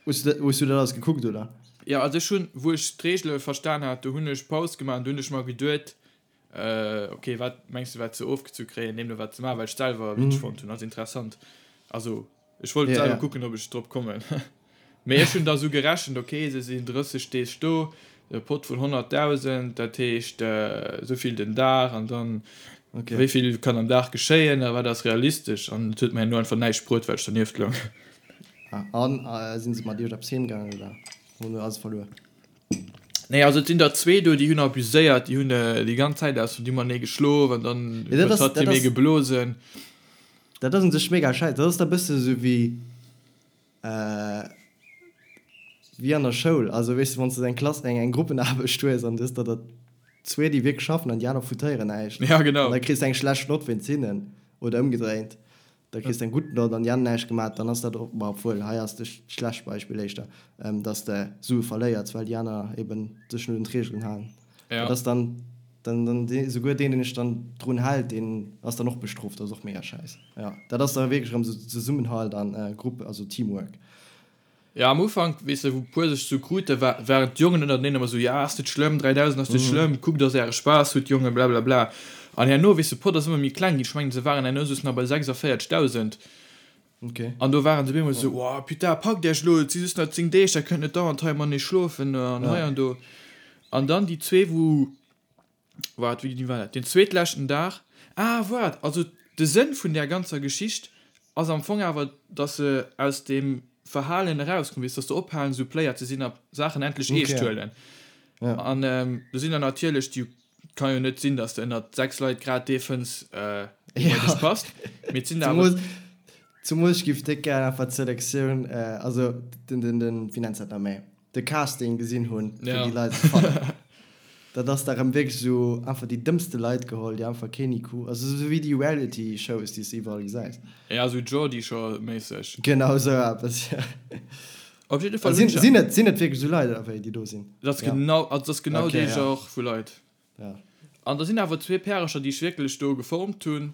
Hues du, hues du dat alles gekuckt, oder? Ja, also ech hunn, wou ech d'Reegele verstan hat, do hunn ech Paus gemaach an do hunn ech mer geduet, ok, wat mengs du wat se ofgezu kréien, deemno wat ze maachen, well ech selwer witzeg fonnt hunn, also interessant. Also ech wollt selwer kucken, ob ech drop kommen. Mee ech hunn da sou gerechent, ok, se sinn 30 Deeg do, e Pott vun 100.000, dat heescht esou vill den Dag an dann. Okay. Wéi vill kann am Dag geschéien a wat ass realistesch? An et huet mer herno einfach näischt bruet, well ech dernieft loung. Ah, an sinn se mat iech eppes heem gaangen oder hunn se alles verluer? Nee, also et sinn der zwee do, déi hunn abuséiert, déi hunn déi ganz Zäit aus dem Mané geschlof an dann Ja, dat huet ass, hatt dat hie méi ass, geblosen. dat ass un sech mega schäiss. Dat ass da bësse sou wéi, wéi an der Schoul. Also weess de, wann s de eng Klass, eng, eng Gruppenaarbecht hues an du hues der der zwee, déi wierklech schaffen an déi aner foutéieren näischt. Ja, genau. An da kriss de eng schlecht Nott wéinst hinnen oder ëmgedréint. Da kriss de eng gutt Nott an déi aner näischt gemaat, dann ass dat och, ma obwuel, hei ass de schlecht Beispill éischter, dass de Sue verléiers, well déi aner eben sech net un d'Reegelen halen. Ja. Dat ass dann, dann, dann dee, souguer deen, deen sech dann drun hält, deen ass dann och bestrooft. Dat ass och mega schäiss. Jo, dat ass da wierklech erëm esou Zesummenhalt an Grupp, also Teamwork. Ja, am Ufank, weess de, wou puer sech sou kruten, war, waren d'Jongen ënnerteneen ëmmer sou, ja, ass net schlëmm, 3000 ass net schlëmm, kuckt, dass äre Spaass hutt, Jongen, blablabla. An herno, weess de, Pott ass ëmmer méi kleng ginn, ech mengen, se waren herno soss nach bei 46.000. Okay. An do waren se op eemol sou, oh, putain, packt iech elo, et si just nach 10 Deeg, da kënnt net dauernd hei matenee schlofen an hei an do. An dann déi zwee, wou. Waart, wéini war dat? Den zweetleschten Dag? Ah, waart, also de Sënn vun där ganzer Geschicht ass am Fong awer, dass se aus deem Verhalen erauskommen, weess, dass se ophalen, esou Player ze sinn a Saachen endlech eescht Okay. huelen. Ja. An do sinn der natierlech, déi, kann jo net sinn, dass de ënnert 6 Leit grad dee fënns, dee bei Ja. dech passt, mee et sinn der awer. Zemools, zemools ech giff déck gär einfach d'Selektioun, also den, den, den, wéi nennt se dat nach méi? de Casting gesinn hunn, fir Ja. déi Leit ze fannen. Dat ass da rëm wierklech esou einfach déi dëmmste Leit geholl, déi einfach keen IQ, also esou wéi déi Reality-Shows, déi s de iwwerall gesäis. Ja, esou Geordie Shore-méisseg. Genau esou eppes, ja. Op jidde Fall Sinn, hunn ech. sinn et, sinn et wierklech esou Leit, oder wéi, déi do sinn? Dat ass Ja. genau, also dat ass genau Okay, dee ja. Genre vu Leit. Ja. An da sinn awer zwee Pärercher, déi ech wierklech do geformt hunn.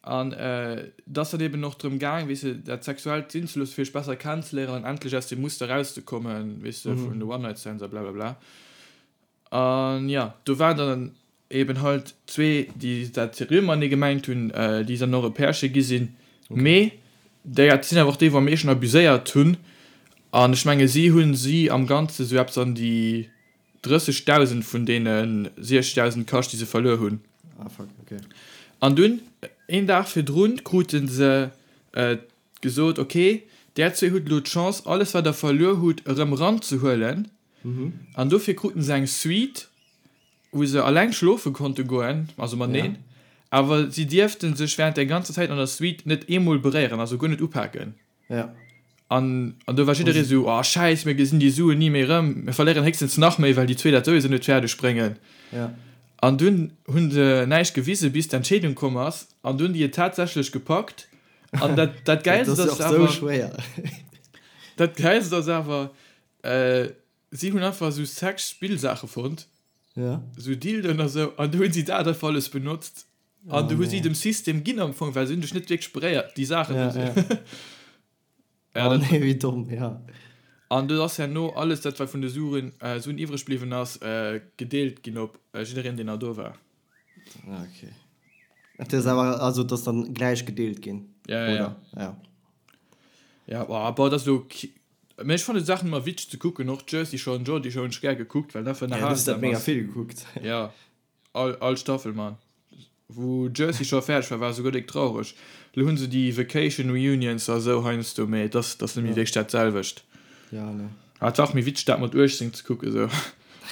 An et ass dann eben och drëm gaang, weess de, dat Sexuellt sinn ze loossen, fir sech besser kennenzeléieren an endlech aus deem Muster erauszekommen, weess de, vun de One-Night-Stands a blablabla. An jo, do waren dann eben halt zwee, déi dat seriö matenee gemengt hunn, déi dann och e Pärche gi sinn. Mee déi dat sinn awer och déi, wou am meeschten abuséiert hunn. An ech menge si hu si am Ganze sou eppes an déi 30.000 vun deene 60.000 Kascht, déi se verluer hunn. Ah, fuck, okay. An dunn, een Dag virdrun, krute se gesot, Ok, där zwee hutt elo d'Chance, alles wat der verluer hutt, erëm eranzehuelen. An dofir kruten se eng Suite, wou se alleng schlofe konnte goen, also mateneen, awer si dierfte sech wärend der ganzer Zäit an der Suite net eemol beréieren, also guer net upaken. Ja. An, an do war jidderee sou, oh Schäiss, mir gesinn déi Suen ni méi erëm, mir verléieren héchstens nach méi, well déi zwee dat souwisou net fäerdeg bréngen. Ja. An dunn hu se näischt gewisen, bis d'Entscheedung komm ass, an dunn déi et tatsächlech gepackt. An dat, dat Gäilst Dat ass ass jo och awer, sou schwéier. dat Gäilst ass awer, si hunn einfach sou Sex-Spillsaache fonnt, Ja. sou Dildoen a sou, an du hunn si dat einfach alles benotzt. An du hu si dem System ginn am Fong, well se hunn dech net wierklech beréiert, déi Saachen. Ja, ja. Ja, oh dat, nee, wéi domm, ja. An do ass herno alles dat, wat vun de Suen, äh, Suen iwwreg bliwwen ass, äh, gedeelt ginn op äh, jiddereen, deen nach do war. Ah, okay. Dat ass awer, also dat ass dann gläich gedeelt ginn, Ja, ja, ja. oder? Ja. Ja, boah, boah, dat ass elo ki-, mee ech fannen d'Saachen ëmmer witzeg ze kucken, och Jersey Shore an Geordie Shore hunn ech gär gekuckt, well dat einfach Ja, du hues dat ënnerhalsam mega ass. vill gekuckt. Ja. All all Staffel man. Wou Jersey Shore fäerdeg war, war esouguer déck traureg. Lo hunn se déi Vacation Reunions a sou heiansdo, mee et ass et ass net méi wierklech dat selwecht. Ja, ne. Awer et war och méi witzeg dat mat 18 ze kucken sou.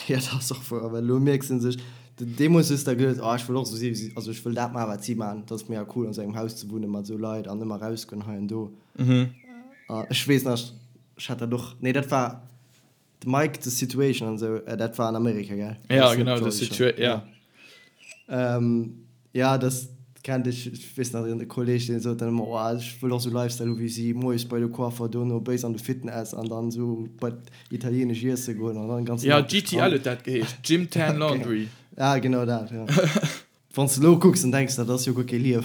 Ja, dat ass och wouer, well elo mierks de sech, deemools hues de der geduet, oh ech wëll och sou si wéi si, also ech wëll dat maachen wat si maachen, dat ass mega cool an sou engem Haus ze wunnen mat sou Leit an ëmmer rausgoen hei an do. A ech weess nach, ech hat dat och, nee dat war, De Mike, The Situation an esou, dat war an Amerika, gell? Ja, genau, The Situation, ja. Ja, dat kennt ech. Ech weess nach, e Kolleeg, deen sot dann ëmmer, oh, ech wëll och esou Lifestyle hu wéi si, moies bei de Coiffer, dono béis an de Fitness an dann esou bei d'Italienesch iesse goen an dann den ganzen Ja, Dag um GTL Strand. huet dat geheescht, Gym Tan Laundry. Ah, genau dat, ja. Wann s de elo kucks, dann denks de, dat ass jo guer kee Liewen.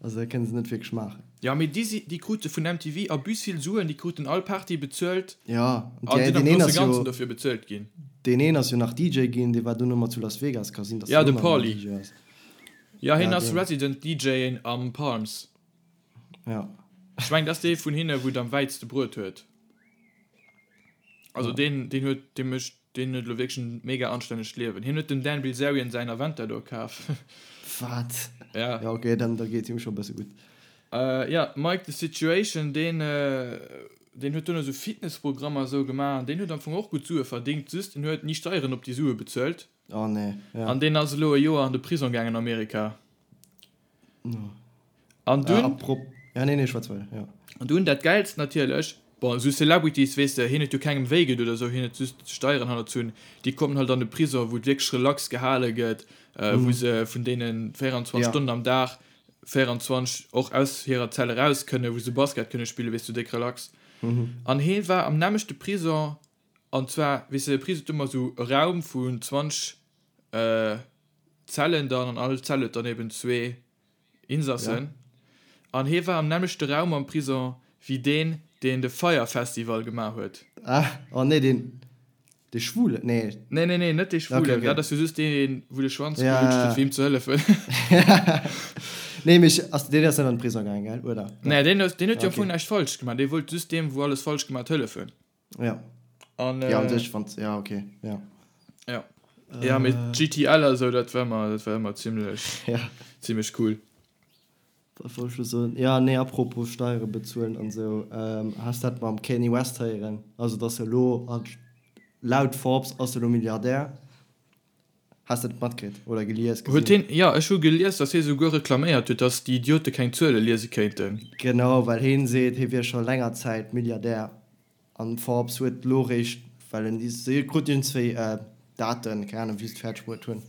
Also dat kënne se net wierklech maachen. Jo, mee déi si, déi krute vun MTV abus vill Suen, déi kruten all Party bezuelt Jo, an deen sinn am een grousse ass jo, Ganzen dofir bezuelt ginn. deen een ass jo nach DJ ginn, dee war dono mat zu Las Vegas, ka sinn, datt Ja, deen de elo nach ëmmer Pauly. DJ ass. Jo, hien Ja, ass deen. Resident DJ am Palms. Ja. Ech mengen, dat ass dee vun hinne, wou et am wäitste bruet huet. Also deen, deen huet, dee mécht. Deen huet elo wierklech en mega anstännegt Liewen. Hien huet dem Dan Bilzerian säin Aventador kaf. Wat? Ja. Ja ok, dann da geet him scho bësse gutt. Ja, Mike the Situation, deen deen huet duerno sou Fitnessprogrammer esou gemaach an deen huet am Fong och gutt Sue verdingt, just en huet ni Steieren op déi Sue bezuelt. Oh nee, ja. An deen ass elo e Joer an de Prisong gaangen an Amerika. An dunn. Apropos, ja nee nee schwätz weider, ja. An dunn dat Gäilst natierlech, bon esou Celebrities weess de, hien huet jo kengem wéi gedoen oder esou, hien huet just Steieren hannerzunn, déi kommen halt an de Prisong wou et wierklech relax gehale gëtt, wou se vun deenen 24 Stonnen am Dag 24 och aus hirer Zell eraus kënnen, wou se Basket kënne spillen, weess du, déck relax. An hie war am nämmlechte Prisong, an zwar weess de, de Prisong huet ëmmer esou e Raum vun 20 Zellen dann, an all Zell huet dann eben zwee Insassen. An hie war am nämmlechte Raum am Prison wéi deen, deen de Fyre Festival gemaach huet. Ah, oh nee, deen, dee Schwulen, nee. Nee, nee, nee, net dee Schwulen, okay, okay. Dat ass jo just deen, wou de Schwanz ja, gelutscht huet, fir him ze hëllefen. Nee, mee ass, deen ass net an de Prison gaangen, gell, oder? Nee, deen huet, deen huet jo am Fong näischt falsch gemaach, dee wollt just deem, wou alles falsch gemaach huet, hëllefen. Ja. An, ja, an sech, wann, ja, okay, ja. Ja. Ja, mee GTL a sou, dat war ëmmer, dat war ëmmer zimlech, ja. zimlech cool. Wat wollt ech lo soen? Ja, nee, apropos Steiere bezuelen an sou, ähm, has dat mam Kanye West héieren? Also, dass e lo, laut Forbes ass e lo Milliardär. Has de dat matkritt oder gelies, gesinn? Huet hien, jo, ech hu gelies, datt hie souguer reklaméiert huet, datt déi Idiote keng Zuele liese kéinten. Genau, well hien seet, hie wier scho länger Zäit Milliardär an Forbes huet elo réischt, well en, si kruten iergendzwéi Daten, keng Ahnung wéi se et fäerdeg bruet hunn,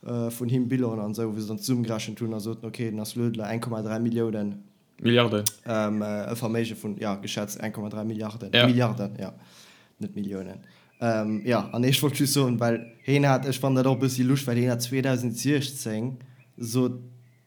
vun him, Bilan an esou, wou se dann zesummegerechent hunn a soten, ok, den ass elo 1,3 Milliounen. Milliarden. E Verméige vun, jo, geschätzt 1,3 Milliarden. Ja. Milliarden, jo, net Milliounen. Jo, an ech wollt just soen, well heen hat, ech fannen dat och e bëssi lusch, well heen hat 2016 sot,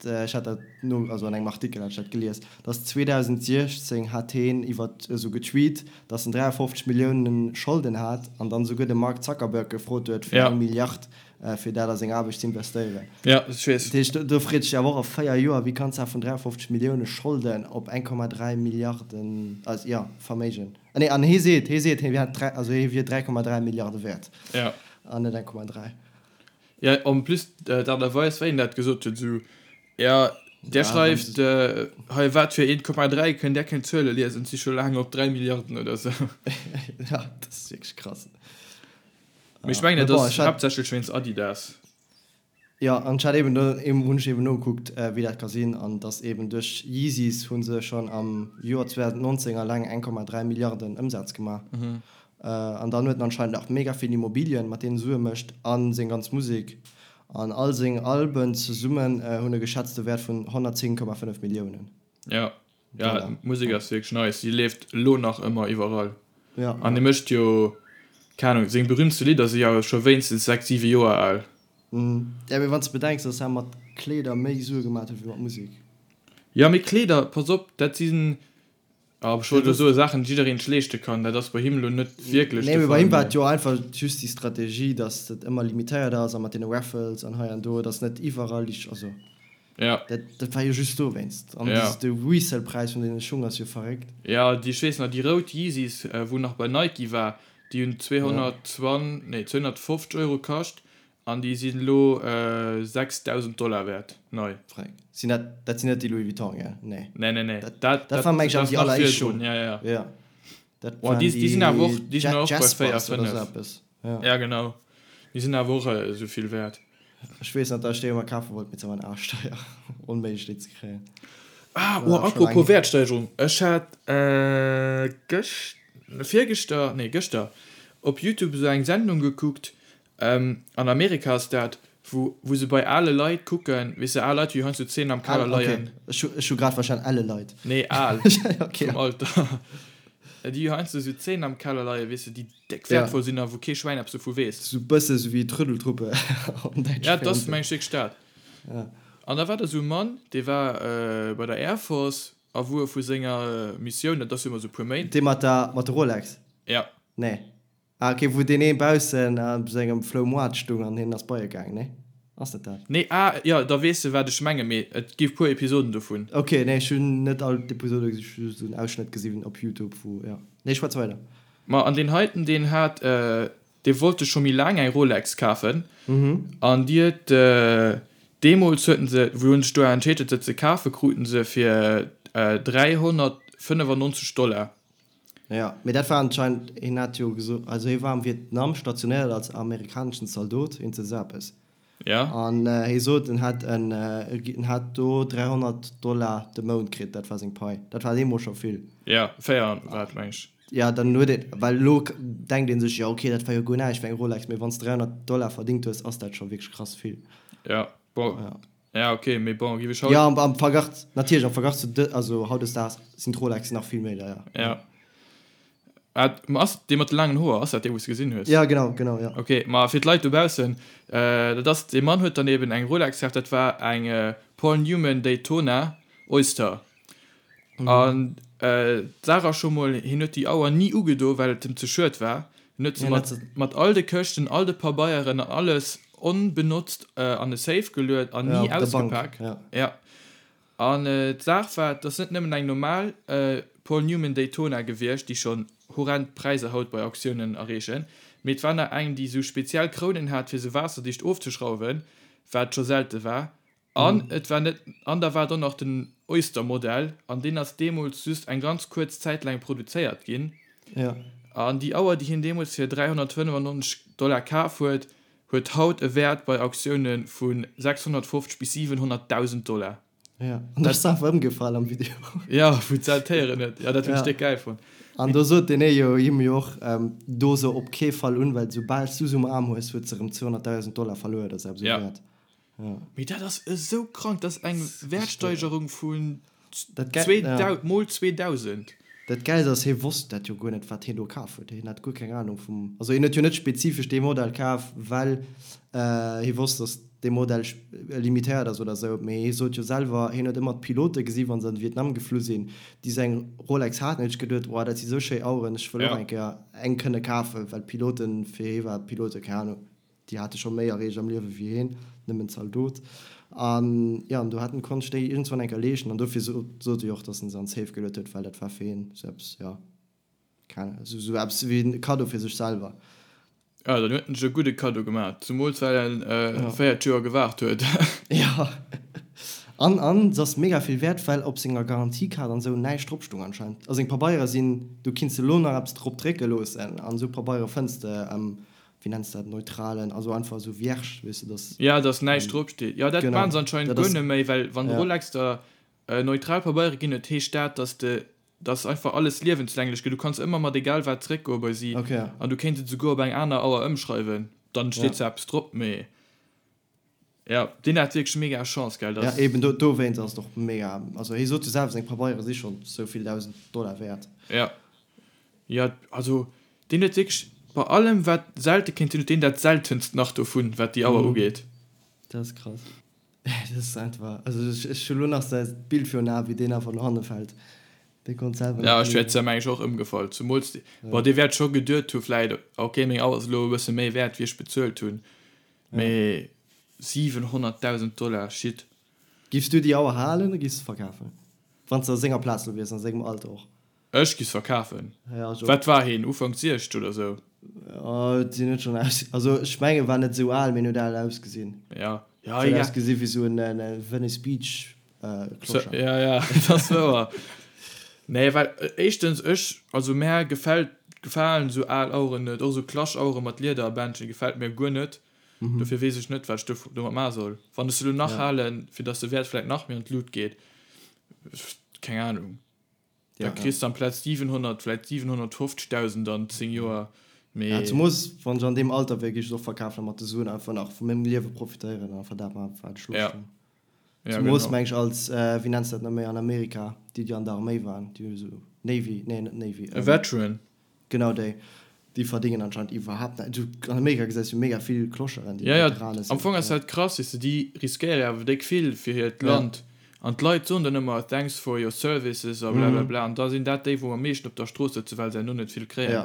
ech hat dat no, also an engem Artikel hat ech dat gelies, datt 2016 hat heen iwwer esou getweet, datt en 53 Milliounen Scholden hat an dann esouguer de Mark Zuckerberg gefrot huet fir eng Milliard fir dat a seng Aarbecht ze investéieren. Ja, ech weess. Dat heescht, do freet sech awer och a 4 Joer, wéi kanns de vun 53 Millioune Scholden op 1,3 Milliarden, also jo, Verméigen. Ah nee, an hee seet, hee seet, hee hätt 3, also hee wier 3,3 Milliarde wäert. Ja. An net 1,3. Ja, en plus d'Aart a Weis, wéi en dat gesot huet, esou, ja, där schreift hei wat fir 1,3, kënnt där keng Zuele liesen, et si scho laang op 3 Milliarden oder esou. Ja, dat ass wierklech krass. Mee ech mengen, et ass haaptsächlech wéinst Adidas. Jo, an ech hat eben do, hunn ech eben nogekuckt, wéi dat ka sinn, an dass eben duerch Yeezys hu se schonn am Joer 2019 alleng 1,3 Milliarden Ëmsaz gemaach. An dann huet en anscheinend nach mega vill Immobilien, mat deenen e Sue mécht, a seng ganz Musek. An all seng Alben zesummen hunn e geschätzte Wäert vun 110,5 Milliounen. Jo. Ja, d'Musek ass wierklech nice. Si leeft elo nach ëmmer iwwerall. Ja. An e mécht jo, keng Ahnung, seng berühmtste Lidder si jo scho wéinstens 6, 7 Joer al. Ja, mee wann s de bedenks, dass hie mat Kleeder méi Sue gemaat huet wéi mat Musek. Ja, mee Kleeder, pass op, dat sinn, ah, ech wollt elo soe Saachen, déi jiddereen sech leeschte kann. Dat ass bei him elo net wierklech de Fall. Nee, mee bei him war et jo einfach just déi Strategie, dass et ëmmer limitéiert ass a mat deene Raffles an hei an do, dass net iwwerall déi, also. Ja. Dat, dat war jo just dowéinst. An ja. de Resale-Präis vun deene Schung ass jo verréckt. Ja, déi, ech weess nach, déi rout Yeezys, wou nach bei Nike war, déi hunn 220, nee, 250 Euro kascht an déi sinn elo 6.000 Dollar wäert, nei. Verréckt. Sinn dat, dat sinn net déi Louis Vuitton, gell? Nee. Nee, nee, nee. Dat, dat, dat war meng ech awer déi alleréischt Schung. Ja, ja. Ja. Dat oh, waren déi, déi sinn awer och, déi sinn och bei 4, 5. Ja. ja, genau. Déi sinn awer och esou vill wäert. Ech weess nach, dass ech déi ëmmer kafe wollt, mee se waren arschteier. Onméiglech déi ze kréien. Ah, oh, apropos Wäertsteigerung, ech hat gëscht, virgëschter, nee gëschter op Youtube esou eng Sendung gekuckt, an Amerika ass dat, wou wou se bei ale Leit kucken, weess de, al Leit wéi heiansdo 10 am Keller leien. Ech hu ech hu grad verstan, elle Leit. Nee, al, vum Alter. Déi heiansdo esou 10 am Keller leien, weess de, déi Déck wäertvoll sinn a wou kee Schwäin eppes dovu weess. Sou bësse sou wéi d'Rëdeltruppe am däitsche Ja, dat ass meng ech wierklech dat. An da war da sou e Mann, dee war bei der Air Force a wou e vu senger Missioun, dat ass jo ëmmer sou e puer Méint. Dee mat der, mat der Rolex? Ja. Nee. Ah ok, wou deen ee baussen a sengem Flou Moart stung an hien ass bei e gaang, nee? Ass dat dat? Nee, ah jo, da weess de wat ech mengen, mee et gi puer Episoden dovun. Ok, nee ech hunn net all d'Episode gesi, ech hu just en Ausschnëtt gesi op Youtube wou, jo. Nee, schwätz weider. Ma an deen heiten, deen hat, Dee wollt sech scho méi laang eng Rolex kafen an déi huet deemools huet en se, wou en sech do entscheet huet se ze kafen, krut en se fir 395 Dollar. Jo, mee dat war anscheinend, hien hat jo gesot, also hie war am Vietnam stationéiert als amerikaneschen Zaldot, iergend esou eppes. Ja. An hie sot, en hätt en, en hätt do 300 Dollar de Mount kritt, dat war seng Pai. Dat war deemools scho vill. Ja, 4 war et, meng ech. Ja, dann huet een, well elo denkt ee sech, jo okay, dat war jo guer näischt fir eng Rolex, mee wann s de 300 Dollar verdingt hues, ass dat scho wierklech krass vill. Ja, bon, Ja. ja okay, mee bon, giff ech haut. Ja, am, am Verglach, natierlech am Verglach zu de, also hautdesdaags sinn d'Rolexen nach vill méi deier. Ja. Ah, ma ass dee mat de laangen Hoer, ass dat dee wou s de gesinn hues? Ja, genau, genau, ja. Okay, ma fir d'Leit dobaussen, dat ass, dee Mann huet dann eben eng Rolex kaf, dat war eng Paul Newman Daytona Oyster. An d'Saach ass scho mol, hien huet déi Auer ni ugedo, well et em ze schued war. Hien huet se mat, mat all de Këschten, all de Pabeieren an alles onbenotzt an e Safe geluet an ni ausgepak. Ja. An d'Saach war, et ass net nëmmen eng normal Paul Newman Daytona gewiescht, déi schonn horrend Präisser haut bei Auktiounen erreechen, mee et war nach eng, déi esou speziell Krounen hat, fir se waasserdicht ofzeschrauwen, wat scho selte war. An et war net, an da war et och nach den Oyster-Modell, an deen ass deemools just eng ganz kuerz Zäit laang produzéiert ginn. Ja. An déi Auer, déi hien deemools fir 395 Dollar kaf huet, huet haut e Wäert bei Auktiounen vu 650 bis 700.000 Dollar. Ja, an da ass se einfach ëmgefall am Video. Ja, wou d'Sel d'Héieren huet. Ja, dat hunn ech déck gäil fonnt. An do sot deen ee jo him jo och, Do se op kee Fall un, well soubal s du se um Aarm hues, huet se erëm 200.000 Dollar verluer oder sou eppes um Wäert. Ja. Mee dat ass esou krank, dat ass eng Wäertsteigerung vun mol 2000. Dat Gäilst ass, hie wosst dat jo guer net, wat hien do kaf huet. Hien hat guer keng Anung vum, also hien huet jo net spezifesch dee Modell kaf, well hie wosst, datt dee Modell limitéiert ass oder esou. Mee hie sot jo selwer, hien huet ëmmer d'Pilote gesi wa se an de Vietnam geflu sinn, déi esou eng Rolex haten. Huet sech geduet, Wow, dat si sou schéi Aueren, ech wëll och eng Kéier eng kënne kafen, well d'Piloten, fir hie war d'Pilote, keng Anung, Déi hate scho méi erreecht am Liewe wéi hien, nëmmen Zaldot. An jo, an do hat en konnt sech déi iergendswann eng Kéier leeschten. An dofir sot e jo och, datt en se an d'Safe geluet huet, well dat war fir hien esou eppes, jo, keng Ahnung, esou eppes wéi en Kaddo fir sech selwer. Jo, dann huet en sech e gudde Kaddo gemaach, zemools well en 40 Joer gewaart huet. Jo, an an se ass mega vill wäert, well op senger Garantiekaart an esou näischt drop stoung anscheinend. A seng Pabeiere sinn, du kinns elo nach eppes drop drécke loossen, an esou Pabeiere fënns de wéi nenns de dat, neutralen, also einfach esou vierge, weess de, dass. Ja, dass näischt drop steet. Jo, dat maachen se anscheinend guer net méi, well wann Rolex der neutral Pabeiere ginn huet, heescht dat, dass de, dass einfach alles liewenslänglech gëtt. Du kanns ëmmer mat egal wat zeréckgoe bei si an du kéints et esouguer op eng aner Auer ëmschreiwen, dann steet zwar eppes drop, mee jo, deen hat wierklech mega Chance, gell, dass. Ja, eben dowéinst ass et och mega, also hie sot jo selwer, seng Pabeiere si schonn esou vill 1.000 Dollar wäert. Ja. Jo, also deen huet wierklech bei allem wat selte kéint sinn, huet deen dat seltenst nach dovun, wat déi Auer ugeet. Dat ass krass. Dat ass einfach, also ech hu lo nach säi Bild virun Aen, wéi deen einfach no hanne fält. Dee konnt selwer net. Ja, ech wäert meng ech och ëmgefall. Zemools, bon, dee wäert scho geduet hu vläit, ok, meng Auer ass elo e bësse méi wäert, wéi ech bezuelt hunn, mee 700.000 Dollar, shit. Giffs du déi Auer halen oder giffs de verkafen? Wann s de a senger Plaz lo wiers, a sengem Alter och. Ech giff verkafen. Ja, ech och. Wat war heen? Ufank 60 oder sou? Jo, et sinn net schon aus, also ech mengen war net sou al, mee en huet al ausgesinn. Ja, ja, huet ausgesinn wéi sou en Venice Beach Clochard. Ja, ja, dat ass wouer. Nee, well éischtens ech, also mär gefält, gefalen sou al Aueren net, och sou Klaschauere mat Liederbändchen gefält mir guer net. Dofir weess ech net wat ech domat maache soll. Wann ech se elo nach halen, fir dass de Wäert vläit nach méi an d'Lut geet, keng Ahnung. Da kriss de amplaz 700 vläit 750.000 an 10 Joer, mee. Ja, zemoos wann ech an deem Alter wier, géif ech et och verkafen a mat de Suen einfach nach vu mengem Liewe profitéieren an einfach dat maachen, wat ech Loscht hunn. Zemoos meng ech als, wéi nenns de dat nach méi an Amerika, déi déi an der Arméi waren, déi esou Navy, nee net Navy. E Veteran. Genau déi. Déi verdéngen anscheinend iwwerhaapt näischt. Du, an Amerika gesäis du mega vill Clocheren, déi Veterane sinn. Am Fong ass dat krass, weess de, déi riskéiere jo awer déck vill fir hiert Land. An d'Leit soen dann ëmmer thanks for your services a blablabla. An da sinn dat déi, wou am meeschten op der Strooss sëtzen, well se herno net vill kréien. Jo,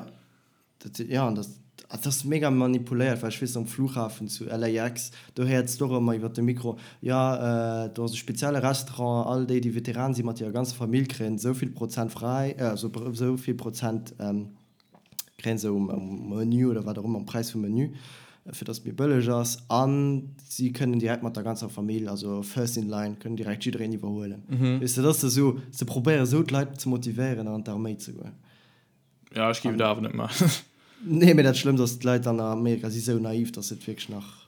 dat sinn, jo, an dat, dat ass mega manipuléiert, well ech weess, am Flughafen zu LAX, do héiers de och ëmmer iwwer de Mikro, jo, do ass e spezielle Restaurant, all déi, déi Veteran sinn, mat hirer ganzer Famill, kréien esou vill Prozent fräi, also esou vill Prozent. Kréien se um Menu oder wat och ëmmer, um Präis vum Menu, fir dass et méi bëlleg ass. A si kënnen direkt mat der ganzer Famill, also first in line, kënnen direkt jiddereen iwwerhuelen. Weess de, dat ass esou, se probéiere esou d'Leit ze motivéieren an d'Arméi ze goen. Ja, ech géif et awer net maachen. Nee, mee dat Schlëmmst ass, d'Leit an Amerika si sou naiv, dass se et wierklech nach,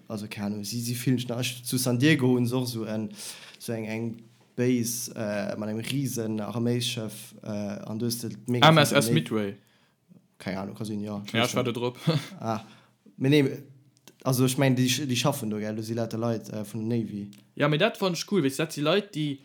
also keng Ahnung, si si fillen sech nach, ech, zu San Diego hunn se och esou en, esou eng, eng Base mat engem risen Arméisschëff an do hues de mega vill MSS Midway. Keng Ahnung, ka sinn, jo. Ja, ech war do drop. Ah, mee nee, also ech mengen, déi, déi schaffen do, gell, do si lauter Leit vun der Navy. Ja, mee dat fannen ech cool, weess de, dat si Leit, déi,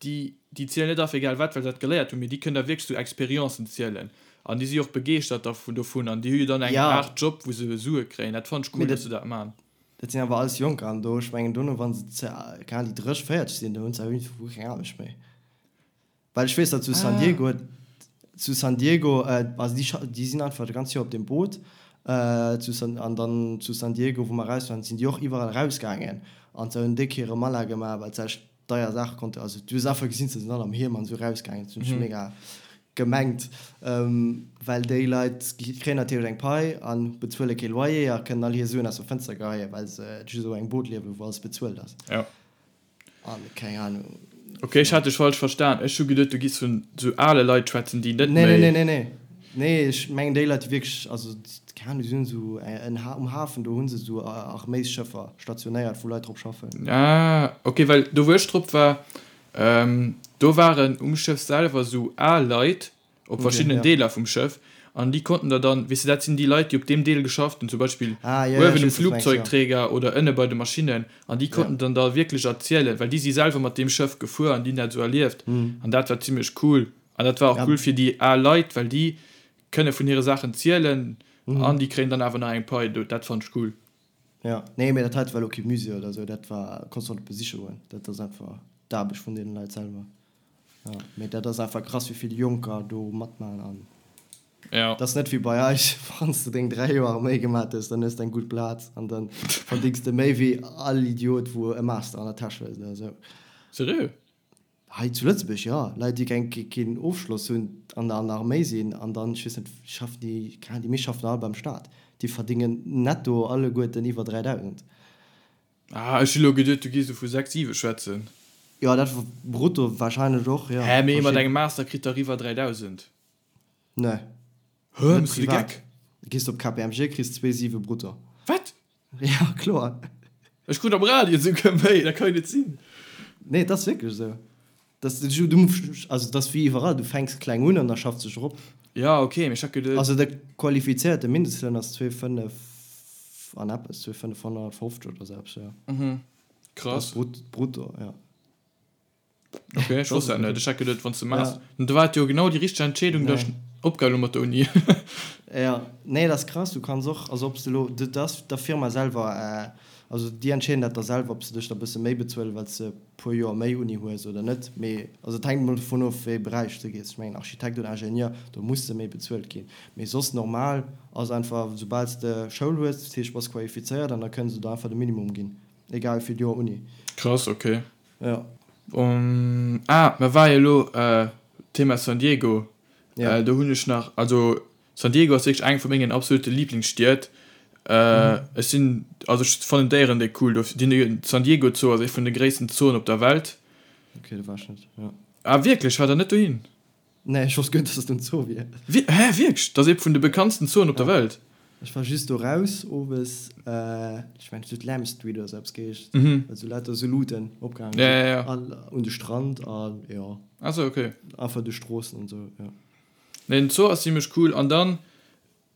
déi, déi zielen net af egal wat, well se dat geléiert hunn, mee déi kënnen da wierklech sou Expériencen zielen an déi si och begeeschtert dervun, dovun an déi hu jo dann eng Aart Job, wou se Sue kréien. Dat fannen ech cool, dass se dat man. Dat sinn awer alles Jonker an do, ech mengen dono, wa se ze, keng Ahnung, déi 30, 40 sinn, do hunn se awer iergendwou keng Aarbecht méi. Well ech weess, datt zu San Diego, zu San Diego, also déi scha, déi sinn einfach dat ganz Joer op deem Boot, zu San, an dann zu San Diego, wou mer eraus waren, sinn déi och iwwerall erausgaangen an se hunn déck hire Mala gemaach, well se echt deier Saache konnte, also du hues einfach gesinn, se sinn all am Hiem an esou erausgaangen, dat hunn ech mega gemengt, well déi Leit kréien natierlech eng Pai a bezuele kee Loyer a kënnen all hir Suen aus dem Fënster geheien, well se just op engem Boot liewen, wou alles bezuelt ass. Ja. An keng Ahnung. Ok, ech hat dech falsch verstan. Ech hu geduet, du giss vun sou ale Leit schwätzen, déi net méi. Nee, nee, nee, nee. Nee, ech mengen déi Leit, déi wierklech, also keng Ahnung, déi hunn esou en um Hafen, do hu se esou Arméisschëffer stationéiert, wou Leit drop schaffen. Ah, ok, well do wou ech drop war, do waren um Schëff selwer esou al Leit op verschiddenen Deeler vum Schëff an déi konnten der dann, weess de, dat sinn déi Leit, déi op deem Deel geschafft hunn, zum Beispill uewen um Flugzeugträger oder ënne bei de Maschinnen, an déi konnten dann da wierklech erzielen, well déi si selwer mat deem Schëff gefuer an déi hunn dat esou erlieft an dat war zimmlech cool. An dat war och cool fir déi al Leit, well déi kënne vun hire Saachen zielen an déi kréien dann awer nach eng Pai. Dat fannt ech cool. Jo, nee, mee dat heite war elo kee Musée oder esou, dat war, konns du och net besiche goen, dat ass einfach d'Aarbecht vun deene Leit selwer. Jo, mee dat ass einfach krass, wéi vill Jonker do matmaachen an dat ass net wéi bei eis, wann s de deng 3 Joer Arméi gemat hues, dann hues de eng gutt Plaz an dann verdéngs de méi wéi all Idiot, wou e Master an der Täsch huet oder esou. Seriö? Hei zu Lëtzebuerg, jo. Leit, déi keng, keen Ofschloss hunn an an der Arméi sinn an dann, ech weess net, schaffen déi, keng Ahnung, déi meescht schaffen all beim Staat, déi verdéngen netto alleguerten iwwer 3.000. Ah, ech hu lo geduet, du giss esou vu 6, 7 schwätzen. Jo, dat brutto wahrscheinlech och, jo. Hä, mee ee mat engem Master kritt dach iwwer 3.000? Nee. Hä, Net méchs du de privat. Geck? Gees op KPMG, kriss 2,7 brutto. Wat? Ja, kloer. Ech krut am Radio esouguer méi, dat kann jo net sinn. Nee, et ass wierklech esou. Das, du, du, also dat ass wéi iwwerall, du fänks kleng un an da schaffs dech erop. Ja, ok, mee ech hat geduet. Also de qualifizéierte Mindestloun ass 2,5 an eppes, 2,550 oder esou eppes, jo. Mhm, krass. Dat ass brutto, jo. Ok, ech wosst dat net. Ech hat geduet, wann s de Master, da war et jo genau déi richteg Entscheedung, datt ech opgehal hu mat der Uni. Jo, nee, dat ass krass. Du kanns och, also ob s de elo, dat ass der Firma selwer, also déi entscheeden dat da selwer, ob se dech da bësse méi bezuelen, well s de e puer Joer méi Uni hues oder net. Mee also et hänkt emol dovun of, wéi ee Beräich s de gees. Ech mengen Architekt oder Ingenieur, do muss de méi bezuelt ginn. Mee soss normal ass einfach, soubal s de Schoul hues, dat heescht bass qualifizéiert, an da kënne se der einfach de Minimum ginn, egal wéi vill Joer Uni. Krass, ok. Jo. Ah, mer war jo elo Thema San Diego. Ja. Do hunn ech nach, also San Diego ass wierklech eng vu mengen absolute Liblingsstied. Ech sinn, also ech fannen d'Déieren déck cool do. Den San Diego Zoo ass ee vun de gréissten Zooen op der Welt. Ok, do war ech net, jo. Ah wierklech, war der net dohin? Nee, ech wosst guer net, dass dat en Zoo wier. Wie, hä, wierklech? Dat ass ee vun de bekanntsten Zooen op der Welt. Ech war just do raus owes, ech mengen et huet Lamb Street oder sou eppes geheescht, well sou lauter sou Luuten opgehaangen sinn. Ja, ja, ja. An un de Strand an jo. Ah sou, ok. Einfach duerch d'Stroossen an sou, jo. Nee, den Zoo ass zimmlech cool. An dann,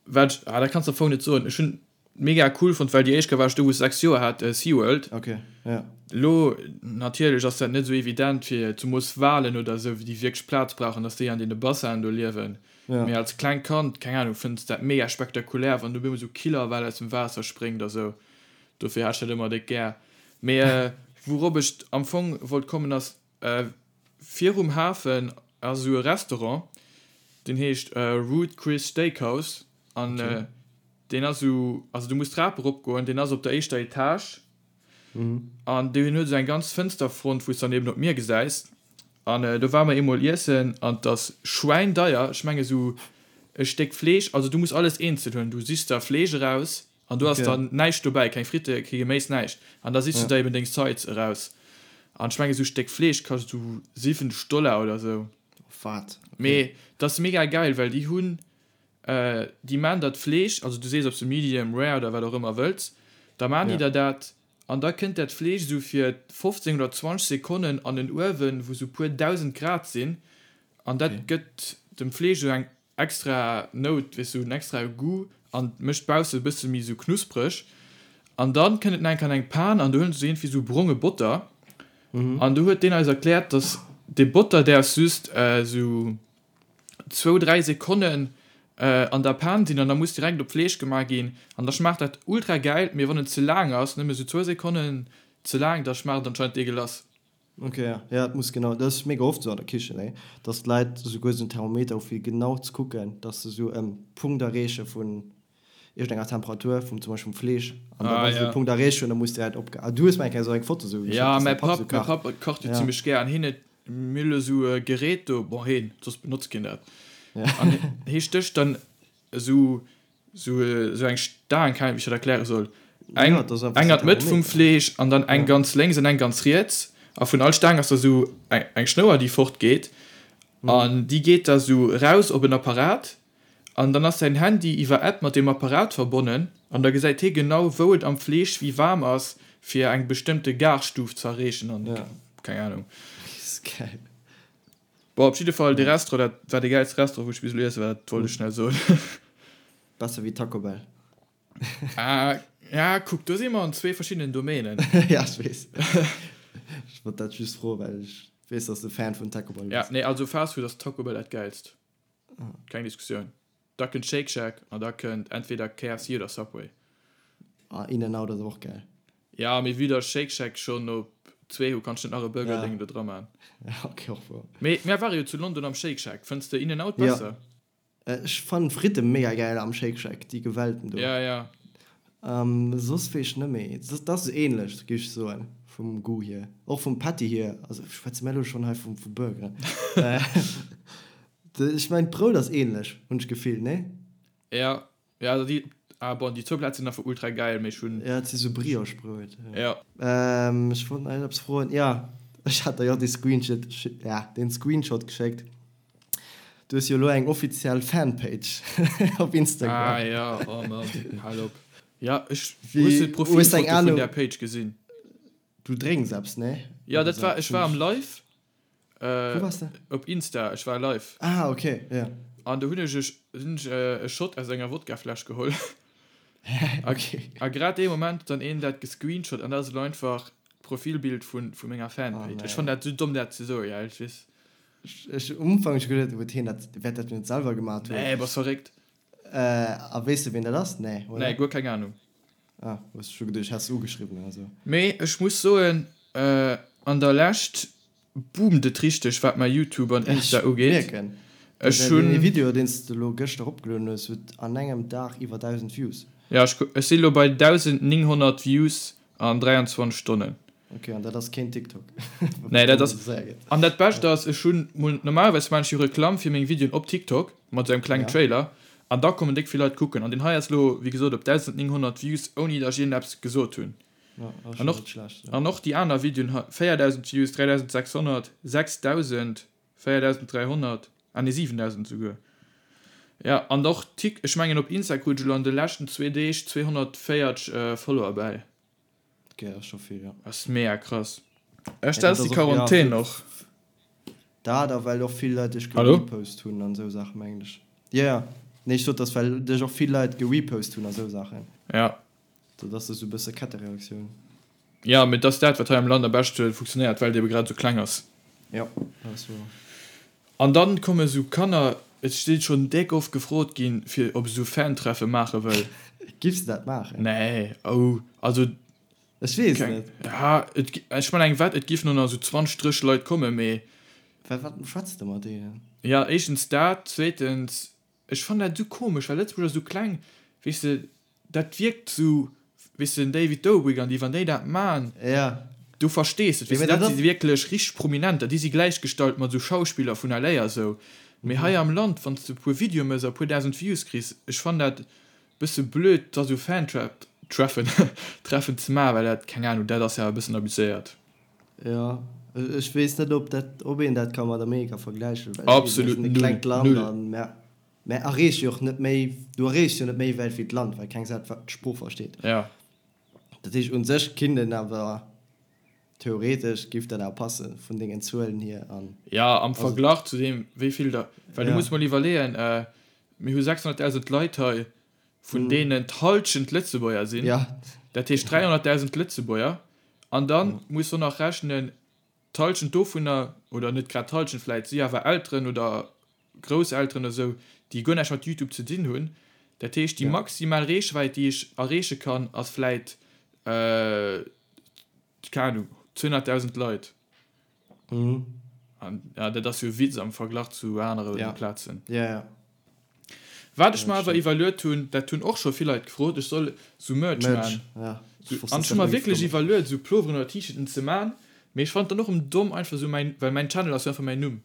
wat ech, ah, dat kanns de am Fong net soen, ech hunn mega cool fonnt, well déi éischt Kéier war ech do, wou ech 6 Joer hat, SeaWorld. Ok, ja. Lo, natierlech ass dat net esou evident fir zemoos Walen oder esou, déi wierklech Plaz brauchen, dass déi an deene Bassinen do liewen. Ja. Mee als klengt Kand, keng Ahnung, fënns de dat mega spektakulär, wann do op eemol esou Killerwal aus dem Waasser spréngt a sou. Dofir hat ech dat ëmmer déck gär. Mee wourop ech am Fong wollt kommen ass, virum Hafen ass esou e Restaurant, deen heescht Ruth Chris Steakhouse an deen ass esou, also du muss d'Trap eropgoen, deen ass op der éischter Etage an deen huet esou eng ganz Fënsterfront, wou s dann eben op d'Mier gesäis. An do ware mer eemol iessen an 't ass schwäindeier, ech menge sou. e Stéck Fleesch, also du muss alles eenzel huelen, du sichs der Fleesch eraus an do ass dann näischt dobäi, keng Fritte, kee Geméis, näischt an da sichs du der eben deng Sides eraus an ech mengen esou Stéck Fleesch kascht esou 70 Dollar oder esou. Wat? Mee dat ass mega geil, well déi hunn, déi maan der d'Fleesch, also du sees ob s de medium rare oder wat och ëmmer wëlls, da maan déi der dat an da kënnt dat Fleesch esou fir 15 oder 20 Sekonnen an en Uewen wou sou puer 1000 Grad sinn An dat gëtt dem Fleesch esou eng extra Nout, weess du, en extrae Goût an mécht bausse e bësse méi esou knuspreg. An dann kënnt et nach eng Kéier an eng Pan an do huelen se esou iergendwéi esou bronge Botter. An do huet deen eis erkläert, dass dee Botter däerf just esou zwou, dräi Sekonnen an der Pan sinn an da muss direkt op d'Fleesch gemaach ginn. An da schmaacht dat ultra gäil, mee wann en ze laang ass, nëmme esou zwou Sekonnen ze laang, da schmaacht et anscheinend deegelass. Ok, ja, ja, et muss genau, dat ass mega oft esou an der Kichen, nee, dass d'Leit esouguer esou en Thermometer hu fir genau ze kucken, dass se esou e Punkt erreeche vun iergendenger Temperatur, vum zum Beispill vum Fleesch, an da wa se dee Punkt erreecht hunn, da muss direkt opge. Ah, du hues mer eng Kéier esou eng Foto esou geschéckt, dass däi Papp esou kacht. Ja, mäi Papp kacht jo zimmlech gär an hien huet mir elo esou e Gerät do, bon hien, soss benotzt keen dat, an hie stécht dann esou Sou eng Staang, keng Ahnung wéi ech dat erkläre soll, eng eng an d'Mëtt vum Fleesch an dann eng ganz lénks an eng ganz riets a vun all Staang ass da sou eng Schnouer déi fort geet an déi geet da sou raus op en Apparat an dann ass säin Handy iwwer App mat deem Apparat verbonnen an da gesäit hie genau wou et am Fleesch wéi waarm ass fir eng bestëmmte Garstuf ze erreechen an keng Ahnung. Bon, op jidde Fall, dee Restaurant, dat war dee gäilste Restaurant, wou ech bis elo iesse war, dat wollt ech schnell soen. Besser wéi Taco Bell. Ah, ja, kuck, do si mer an zwee verschiddenen Domänen. Ja, ech weess. Ech wollt dat just froen, well ech weess, dass de Fan vun Taco Bell Ja, bass. nee, also Fast Food ass Taco Bell dat gäilst. Keng Diskussioun. Da kënnt Shake Shack an da kënnt entweder KFC oder Subway. Ah, In-N-Out ass och gäil. Ja, mee vue dass Shake Shack schonn op zwee hu, kanns du net nach e Burger-Déng do dra man. Ja, ok, och wouer. Mee mär ware jo zu London am Shake Shack. Fënns de In-N-Out besser? Ja, ech fannen d'Fritte mega gäil am Shake Shack, déi gewellten do. Ja, ja. Soss weess ech net méi. Dat ass esou ähnlech, géif ech soen, vum Goût hier. Och vum Patty hier. Also schwätze mär elo schonn hei vu Burgeren. Ech mengen d'Brout ass ähnlech, hunn ech d'Gefill, nee? Ja, ja, also déi, ah bon, déi zwou Plätz sinn einfach ultra gäil, mee ech hunn. Ja, et si sou Brioche-Brout. Ja. Ech wollt nach eppes froen, jo, ech hat der jo dee Screenshot, ja, deen Screenshot geschéckt. Du hues jo elo eng offiziell Fanpage op Instagram. Ah ja, oh Mann, hal op. Ja, ech, hues du d'Profilfoto vun där Page gesinn? Du drénks eppes, nee? Ja, dat war, ech war am Live. Wou wars de? Op Insta, ech war live. Ah, ok, ja. An do hunn ech hunn ech e Shot aus enger Wodkafläsch geholl. Ok. A grad dee Moment huet dann een dat gescreenshot an dat ass elo einfach d'Profilbild vu vu menger Fanpage. Ech fannen dat esou domm dat ze soen, ja, ech weess. Ech um Ufank hu ech geduet, huet hien dat, wäert dat net selwer gemat hunn. Nee, bass verréckt. A weess de ween dat ass? Nee, oder? Nee, guer keng Ahnung. Ah, hues scho geduecht, häss se ugeschriwwen oder sou. Mee ech muss soen, an der Lescht boomt et richteg wat mäi Youtube an Insta ugeet. Ech mierken. Ech hunn. Deen Video deen s de elo gëschter eropgelueden hues, huet an engem Dag iwwer 1.000 Views. Jo, ech ech si lo bei 1.900 Views an 23 Stonnen. Ok, an dat ass keen TikTok. Nee, dat ass. An dat Bescht ass, ech hunn mol, normalerweis maan ech jo Reklamm fir meng Videoen op TikTok mat esou engem klengen Trailer an da kommen déck vill Leit kucken. An deen hei ass lo, wéi gesot, op 1.900 Views, ouni datt ech iergendeppes gesot hunn. An och, an och déi aner Videoen, 4.000 Views, 3.600, 6.000, 4.300, ah nee 7.000 esouguer. Jo, an och Tik, ech mengen op Insta krut ech elo an de leschten zwee Deeg 240 Follower bäi. Ok, dat ass scho vill, jo. Ass mega krass. Ech dat ass déi Quarantän och. Dat a well och vill Leit dech gerepost hunn an esou Saachen, mengen ech. Jo, jo. Nee, ech sot, dass well dech och vill Leit gerepost hunn a sou Saachen. Ja. Dat ass esou e bësse Kettereaktioun. Jo, mee et ass dat, wat hei am Land am beschte funktionéiert, well et ebe grad esou kleng ass. Jo, dat ass wouer. An dann komme sou Kanner, et si schonn déck oft gefrot ginn, fir ob ech sou Fan-Treffe maache wëll. Giffs de dat maachen? Nee, oh, also. Ech weess net. Ja, et, ech man eng Wett, et giffen no nach sou 20, 30 Leit kommen, mee. Well wat schwätz de mat deenen? Ja, éischtens dat, zweetens, Ech fannen dat esou komesch, well Lëtzebuerg ass esou kleng, weess de, dat wierkt esou, weess de, den David Dobrik an déi, wann déi dat man, du verstees et, weess de, dat si wierklech richteg Prominenter, déi si gläichgestallt mat esou Schauspiller vun LA a sou. Mee hei am Land, wann s de e puer Videoe méchs a e puer 1.000 Views kriss, ech fannen dat bësse blöd, da sou Fan-Treffen Treffen ze maachen, well dat, keng Ahnung, dat ass jo awer e bëssen abuséiert. Jo, ech weess net, ob dat, ob een dat ka mat Amerika vergläichen, well eben, mir Absolut sinn e null, klengt Land null. a mär, mär erreeche jo och net méi, du erreechs jo net méi wäit wéi d'Land, well keng Säit d'Sprooch versteet. Ja. Dat heescht, u sech kinnt een awer Theoretesch giff dat awer passen vun dengen Zuelen hier an. Ja, am Verglach zu deem wéi vill der, well du muss mol iwwerleeën, mir hu 600.000 Leit hei, vun deenen d'Halschent Lëtzebuerger sinn, dat heescht 300.000 Lëtzebuerger, an da muss de och nach rechnen, d'Halschent dovunner, oder net grad d'Halschent vläit, si awer Elteren oder Grousselteren oder sou, déi guer näischt mat Youtube ze dinn hunn. Dat heescht déi maximal Reechwäit déi ech erreeche kann ass vläit, keng Ahnung, 200.000 Leit. Mhm. An ja, dat ass jo e Witz am Verglach zu anere ja. Plazen. Ja, ja. Wat ech mer awer iwwerluet hunn, dat hunn och scho vill Leit gefrot, ech soll sou Merch Merch, man. ja. Sou, an ech hu mer wierklech iwwerluet, sou Ploveren oder T-Shirten ze man, mee ech fannen et dann och erëm domm, einfach sou mäin, well mäin Channel ass jo einfach mäin Numm.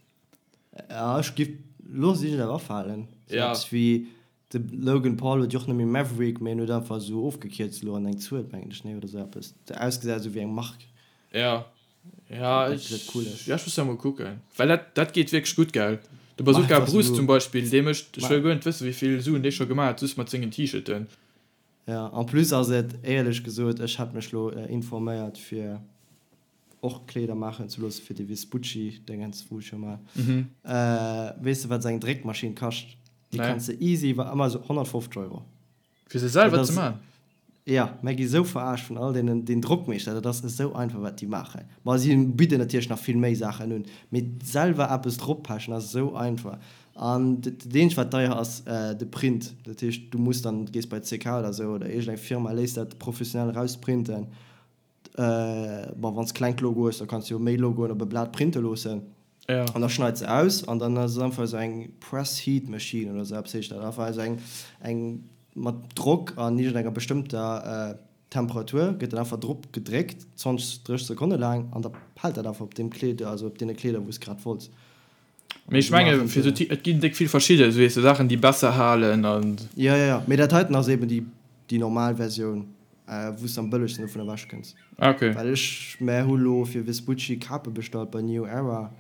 Ja, ech giff, looss ech et awer afalen. Sou Ja. eppes wéi De Logan Paul huet jo och net méi Maverick, mee en huet einfach esou ofgekierzt elo an eng Zuel, mengen ech, nee, oder esou eppes. Dat ausgesäit esou wéi eng Mark. Ja, ja, Dat ech, gesäit cool aus. ja, ech muss da mol kucken. Well dat, dat geet wierklech gutt, gell? De Mach Bazooka einfach Bruce esou. zum Beispill, dee mécht, ech Ma. wëll guer net wëssen, wéi vill Suen dee scho gemaach huet, just mat sengen T-Shirten. Ja, en plus ass et, éierlech gesot, ech hat mech lo informéiert fir och Kleeder maachen ze loossen fir de Vespucci Déngens wou ech jo mal. Weess de wat esou eng Dréckmaschinn kascht? Déi kanns de easy iwwer Amazon 150 Euro. Fir se selwer ze man? Jo, mär gi sou verarscht vun all deenen den Drockmeeschter, dat ass esou einfach wat déi maachen. Bon si bidden natierlech nach vill méi Saachen un, mee selwer eppes droppechen ass esou einfach. An dat eenzegt wat deier ass de Print, dat heescht du muss dann gees bei CK oder sou oder iergend eng Firma léiss dat professionell erausprinten. Bon, wann s klengt Logo hues, da kanns de jo méi Logoen op e Blat printe loossen. Ja. An da schneids se aus an dann ass et einfach esou eng Press Heat Machine oder esou eppes heescht dat. Einfach esou eng, eng mat Drock an iergendenger bestëmmter Temperatur gëtt dat einfach drop gedréckt, 20, 30 Sekonne laang an da hält dat einfach op deem Kleed, also op deene Kleeder wou s grad wollts. Mee ech menge fir esou, et ginn déck vill verschidde, esou weess de, Saachen déi besser halen an. Jo, jo, jo, mee dat heiten ass eben déi, déi normal Versioun, wou s de am bëllegsten dovun ewech kënns. Ah, ok. Well ech, mär hu lo fir Vespucci Kape bestallt bei New Era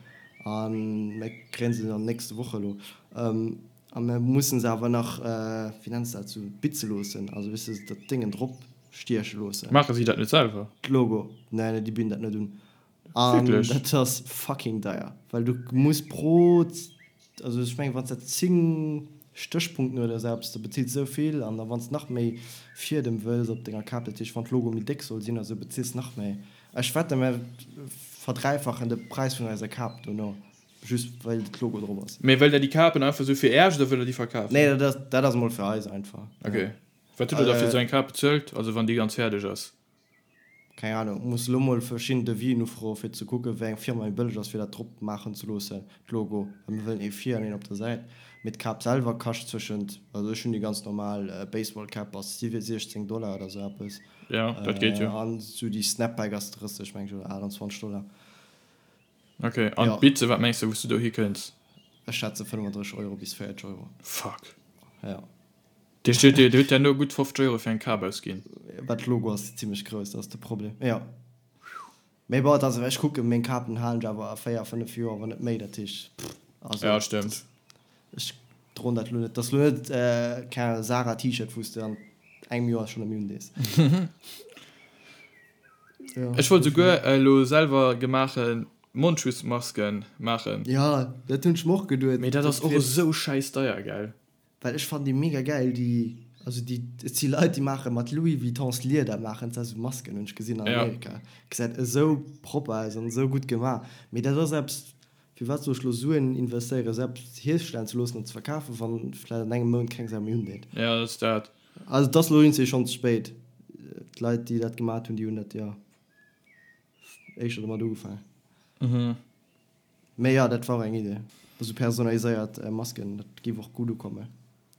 a mär kréien se an nächste Woch elo. A mär mussen se awer nach, wéi nenns de dat, sou bitze loossen, also weess de, dat Déngen drop stieche loossen. Maache si dat net selwer? D'Logo, nee, nee, déi bidden dat net un. An dat ass fucking deier, well du muss pro, also ech mengen wann s dat 10 Stéchpunkten oder esou eppes, da bezills de esou vill an da wann s nach méi Fiedem wëlls op denger Kap, dat heescht wann d'Logo méi déck soll sinn oder esou, bezills nach méi. Ech wette mer verdräifachen de Präis vun eiser Kap dono, just well d'Logo drop ass. Mee wëllt der déi Kapen einfach esou fir Äerch oder wëllt der déi verkafen? Nee, dat ass, dat ass emol fir eis einfach. Ok. Wat hutt der da fir esou eng Kap bezuelt, also wann déi ganz fäerdeg ass? Keng Ahnung, muss elo mol verschidden Devisen ufroen fir ze kucken wéi eng Firma méi bëlleg ass fir dat drop maachen ze loossen, d'Logo, well mir wëllen ee vir an een op der Säit, mee d'Kap selwer kascht zwëschent, also ech hunn déi ganz normal Baseball Cap ass 16 Dollar oder sou eppes, Jo, dat geet jo. an sou déi Snapback ass 30 meng ech oder 28 Dollar. Ok, an d'Bize, wat mengs de wou s du do hikënns? Ech schätze 35 Euro bis 40 Euro. Fuck. Jo. Dir hutt dir hutt herno gutt 50 Euro fir eng Kap ausginn. Well d'Logo ass zimlech grouss, dat ass de Problem, jo. Mee bon, et ass, ech kucken, meng Kapen halen ech awer 4, 5 Joer, wann net méi, dat heescht, pff, also. Ja, stëmmt. Ech droen dat elo net, dat ass elo net, keng Ahnung, Zara T-Shirt, wou s de an engem Joer schonn net méi undees. Jo. Ech wollt souguer elo selwer gemaache Mondschutzmasken maachen. Jo, dat hunn ech mer och geduet. Mee dat ass och esou schäiss deier, gell? Well ech fannen déi mega gäil, déi, also déi, et si Leit déi maache mat Louis Vuittons Lieder maachen se esou Masken, hunn ech gesinn an Amerika, gesäit esou propper aus an esou gutt gemaach, mee dat ass eppes, firwat soll ech lo Suen investéieren esou eppes hierstellen ze loossen an ze verkafen, wann vläit an engem Mount keng Sau méi undeet. Jo, dat ass dat. Also et ass lo iergendwéi schonn ze spéit, d'Leit déi dat gemat hunn, déi hunn dat jo éischter domat ugefaangen. Mee jo, dat war och eng Idee. Esou personaliséiert Masken, dat géif och gutt ukommen.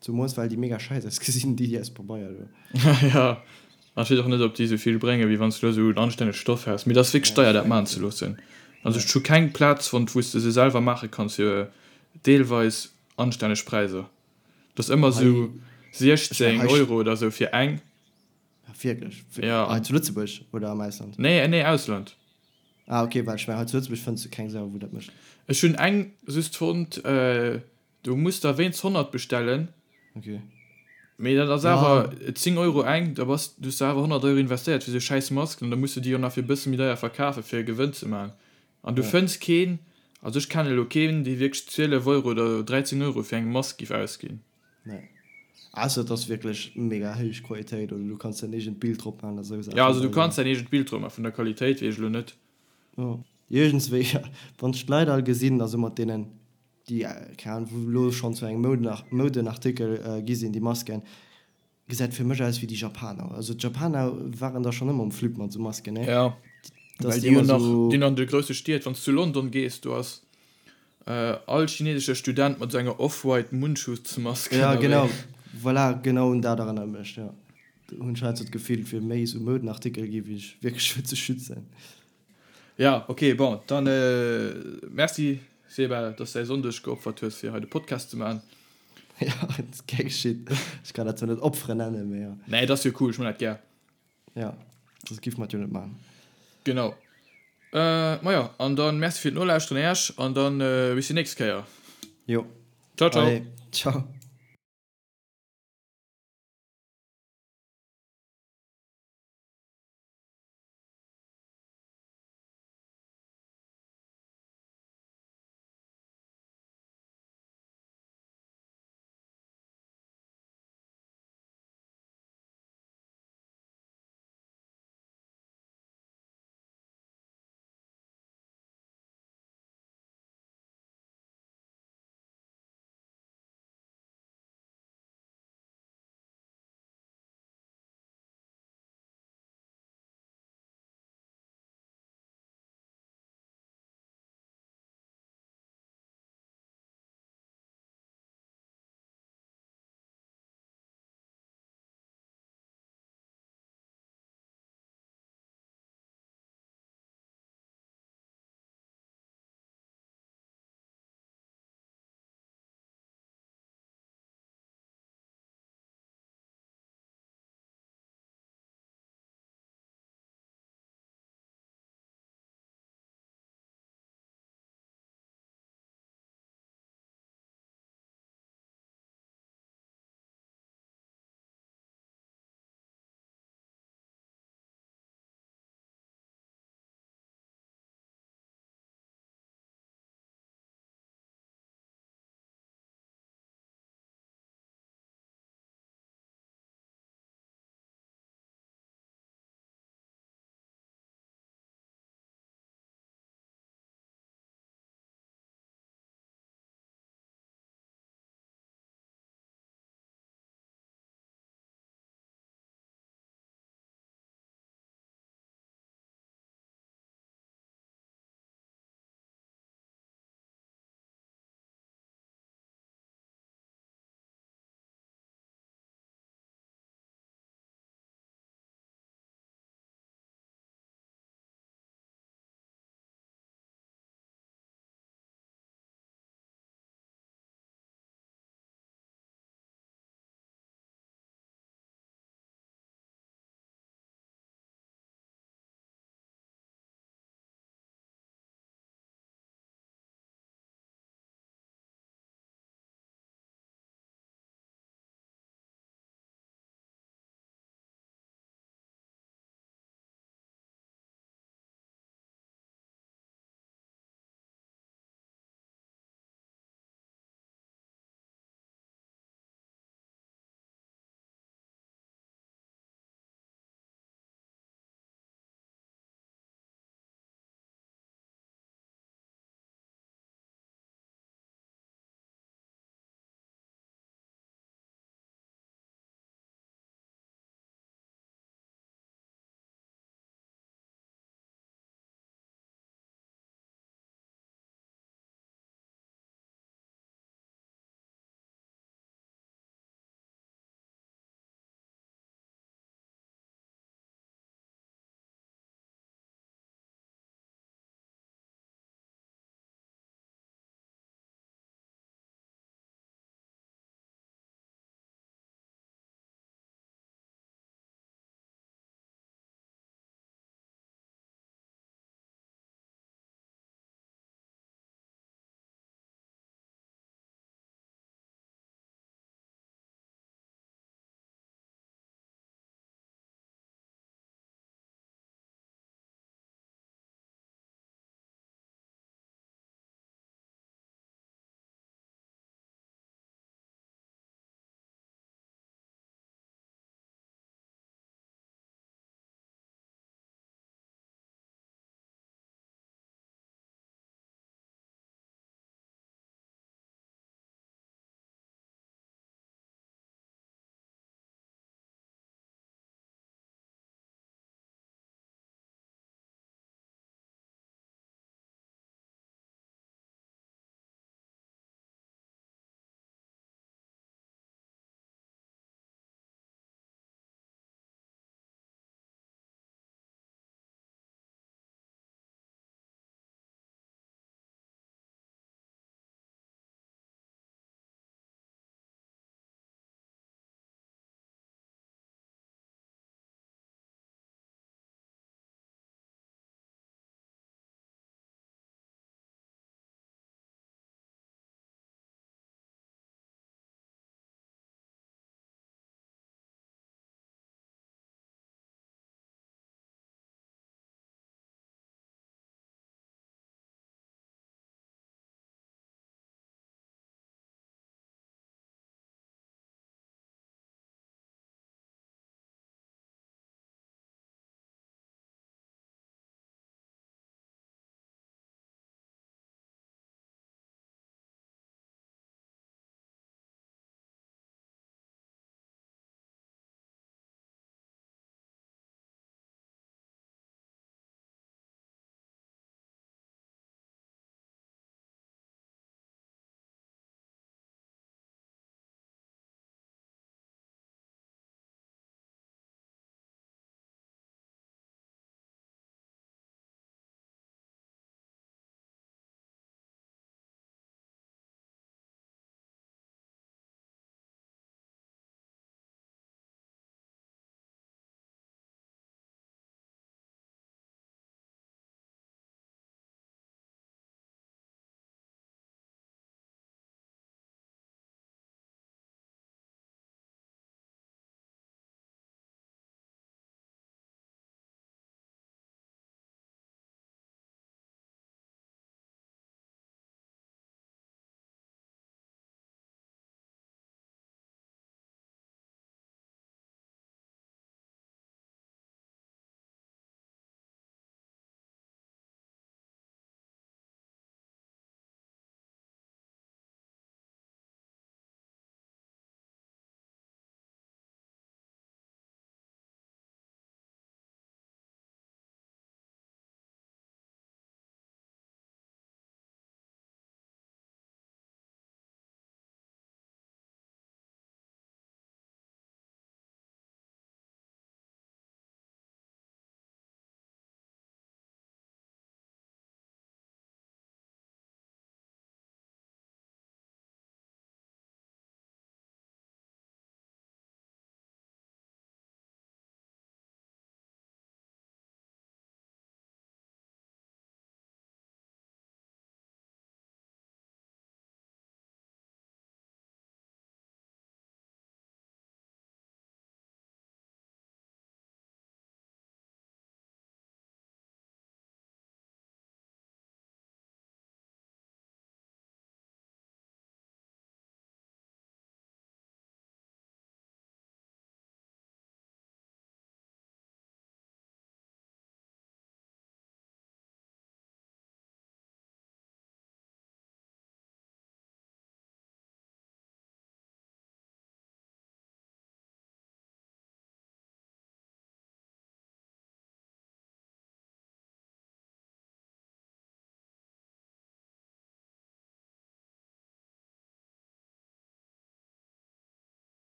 Zumols well déi mega scheiss ausgesinn, déi déi aus Pabeier do. Jo, an ech weess och net op déi esou vill bréngen, wéi wann s du elo esou en anstännegt Stoff häss. Mee et ass wierklech deier dat maachen ze loossen. Also ech hu keng Plaz fonnt wou s de se selwer maache kanns fir. Deelweis anstänneg Präisser. Dat ass ëmmer sou 16 Euro oder sou fir eng. Wierklech? Ja. Hei zu Lëtzebuerg oder am Ausland? Nee, nee, Ausland. Ah ok, well ech mengen hei zu Lëtzebuerg fënns du keng Sau wou dat mécht. Ech hunn eng just fonnt, do muss der wéinst 100 bestellen. Ok. Mee dat ass awer 10 Euro eng, da bass du hues awer 100 Euro investéiert fir sou schäiss Masken an da muss du déi och nach fir e bësse méi deier verkafe fir e Gewënn ze maachen. An du fënns keen, also ech kennen elo keen, dee wierklech 12 Euro oder 13 Euro fir eng Mask giff ausginn. Nee. Ausser et ass wierklech mega héich Qualitéit oder du kanns däin eegent Bild drop maachen oder esou Saachen. Ja, also du kanns däin eegent Bild drop maachen, vun der Qualitéit weess ech elo net. Jo. Iergendswéi, wann ech d'Leit all gesinn, also mat deenen, déi, keng Ahnung, wou elo schonn zu engem Moudenartikel gi sinn, déi Masken, Gesäit fir mech aus wéi déi Japaner. Also d'Japaner waren da schon ëmmer um Flip mat sou Masken, ne? Ja, well déi hunn nach, déi hunn an de grousse Stied, wann s du zu London gees, do ass all chinesesche Student mat sou enger off-white Mundschutzmask ënnerwee. Ja, genau, voilà, genau un dat erënnert mech, jo. Do hunn ech halt sou d'Gefill, et wier méi sou Moudenartikel gi wéi sech wierklech fir ze schützen. Ja, ok, bon, dann merci Seba, dass du däi Sonndeg geopfert hues fir hei de Podcast ze maachen. Ja, et ass gär geschitt. Ech kann dat zwar net Opferen nennen, mee jo. Nee, et ass jo cool, ech man dat gär. Ja, soss giff mer et jo net maachen. Genau. Majo, an dann merci fir d'Nolauschteren Äech an dann bis déi nächst Kéier. Jo. Ciao, ciao. Allez, ciao.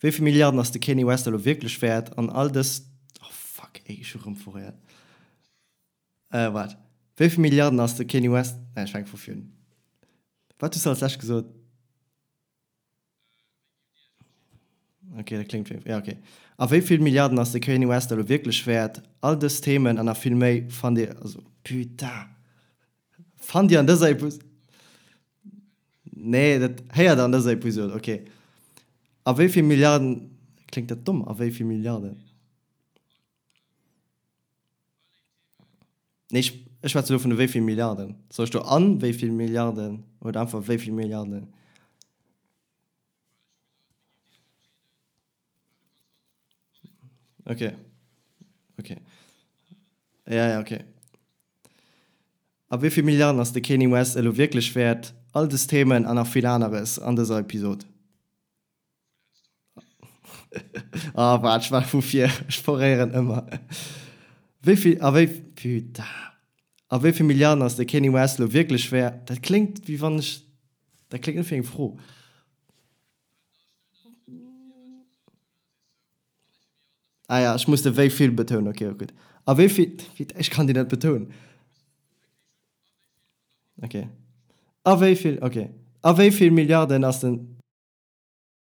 Wéi vill Milliarden ass de Kanye West elo wierklech wäert? An all dës, oh fuck, ey, ech hu rëm foréiert. Äh, waart. Wéi vill Milliarden ass de Kanye West, nee, ech fänke vu vir un. Wat hues du als lescht gesot? Ok, dat kléngt wéi, ja ok. A wéi vill Milliarden ass de Kanye West elo wierklech wäert? All dës Themen an nach vill méi fannt Dir, also putain, fannt Dir an dëser Episod, nee, dat héiert Der an dëser Episod, ok. A wéi vill Milliarden, kléngt dat domm, a wéi vill Milliarden? Nee, ech, ech schwätze elo vun de wéi vill Milliarden. Soll ech do an wéi vill Milliarden oder einfach wéi vill Milliarden? Okay. Okay. Ja, ja, okay. A wéi vill Milliarden ass de Kanye West elo wierklech wäert? All dës Themen an nach vill aneres an dëser Episod. Ah waart, ech war vu vir, ech foréieren ëmmer. Wéi vill, a wéi, putain, a wéi vill Milliarden ass de Kanye West elo wierklech wäert? Dat kléngt wéi wann ech, dat kléngt net wéi eng Fro. Ah ja, ech muss de wéi vill betounen, ok, gutt. A wéi vill, ech kann déi net betounen. Ok. A wéi vill, ok. A wéi vill Milliarden ass den.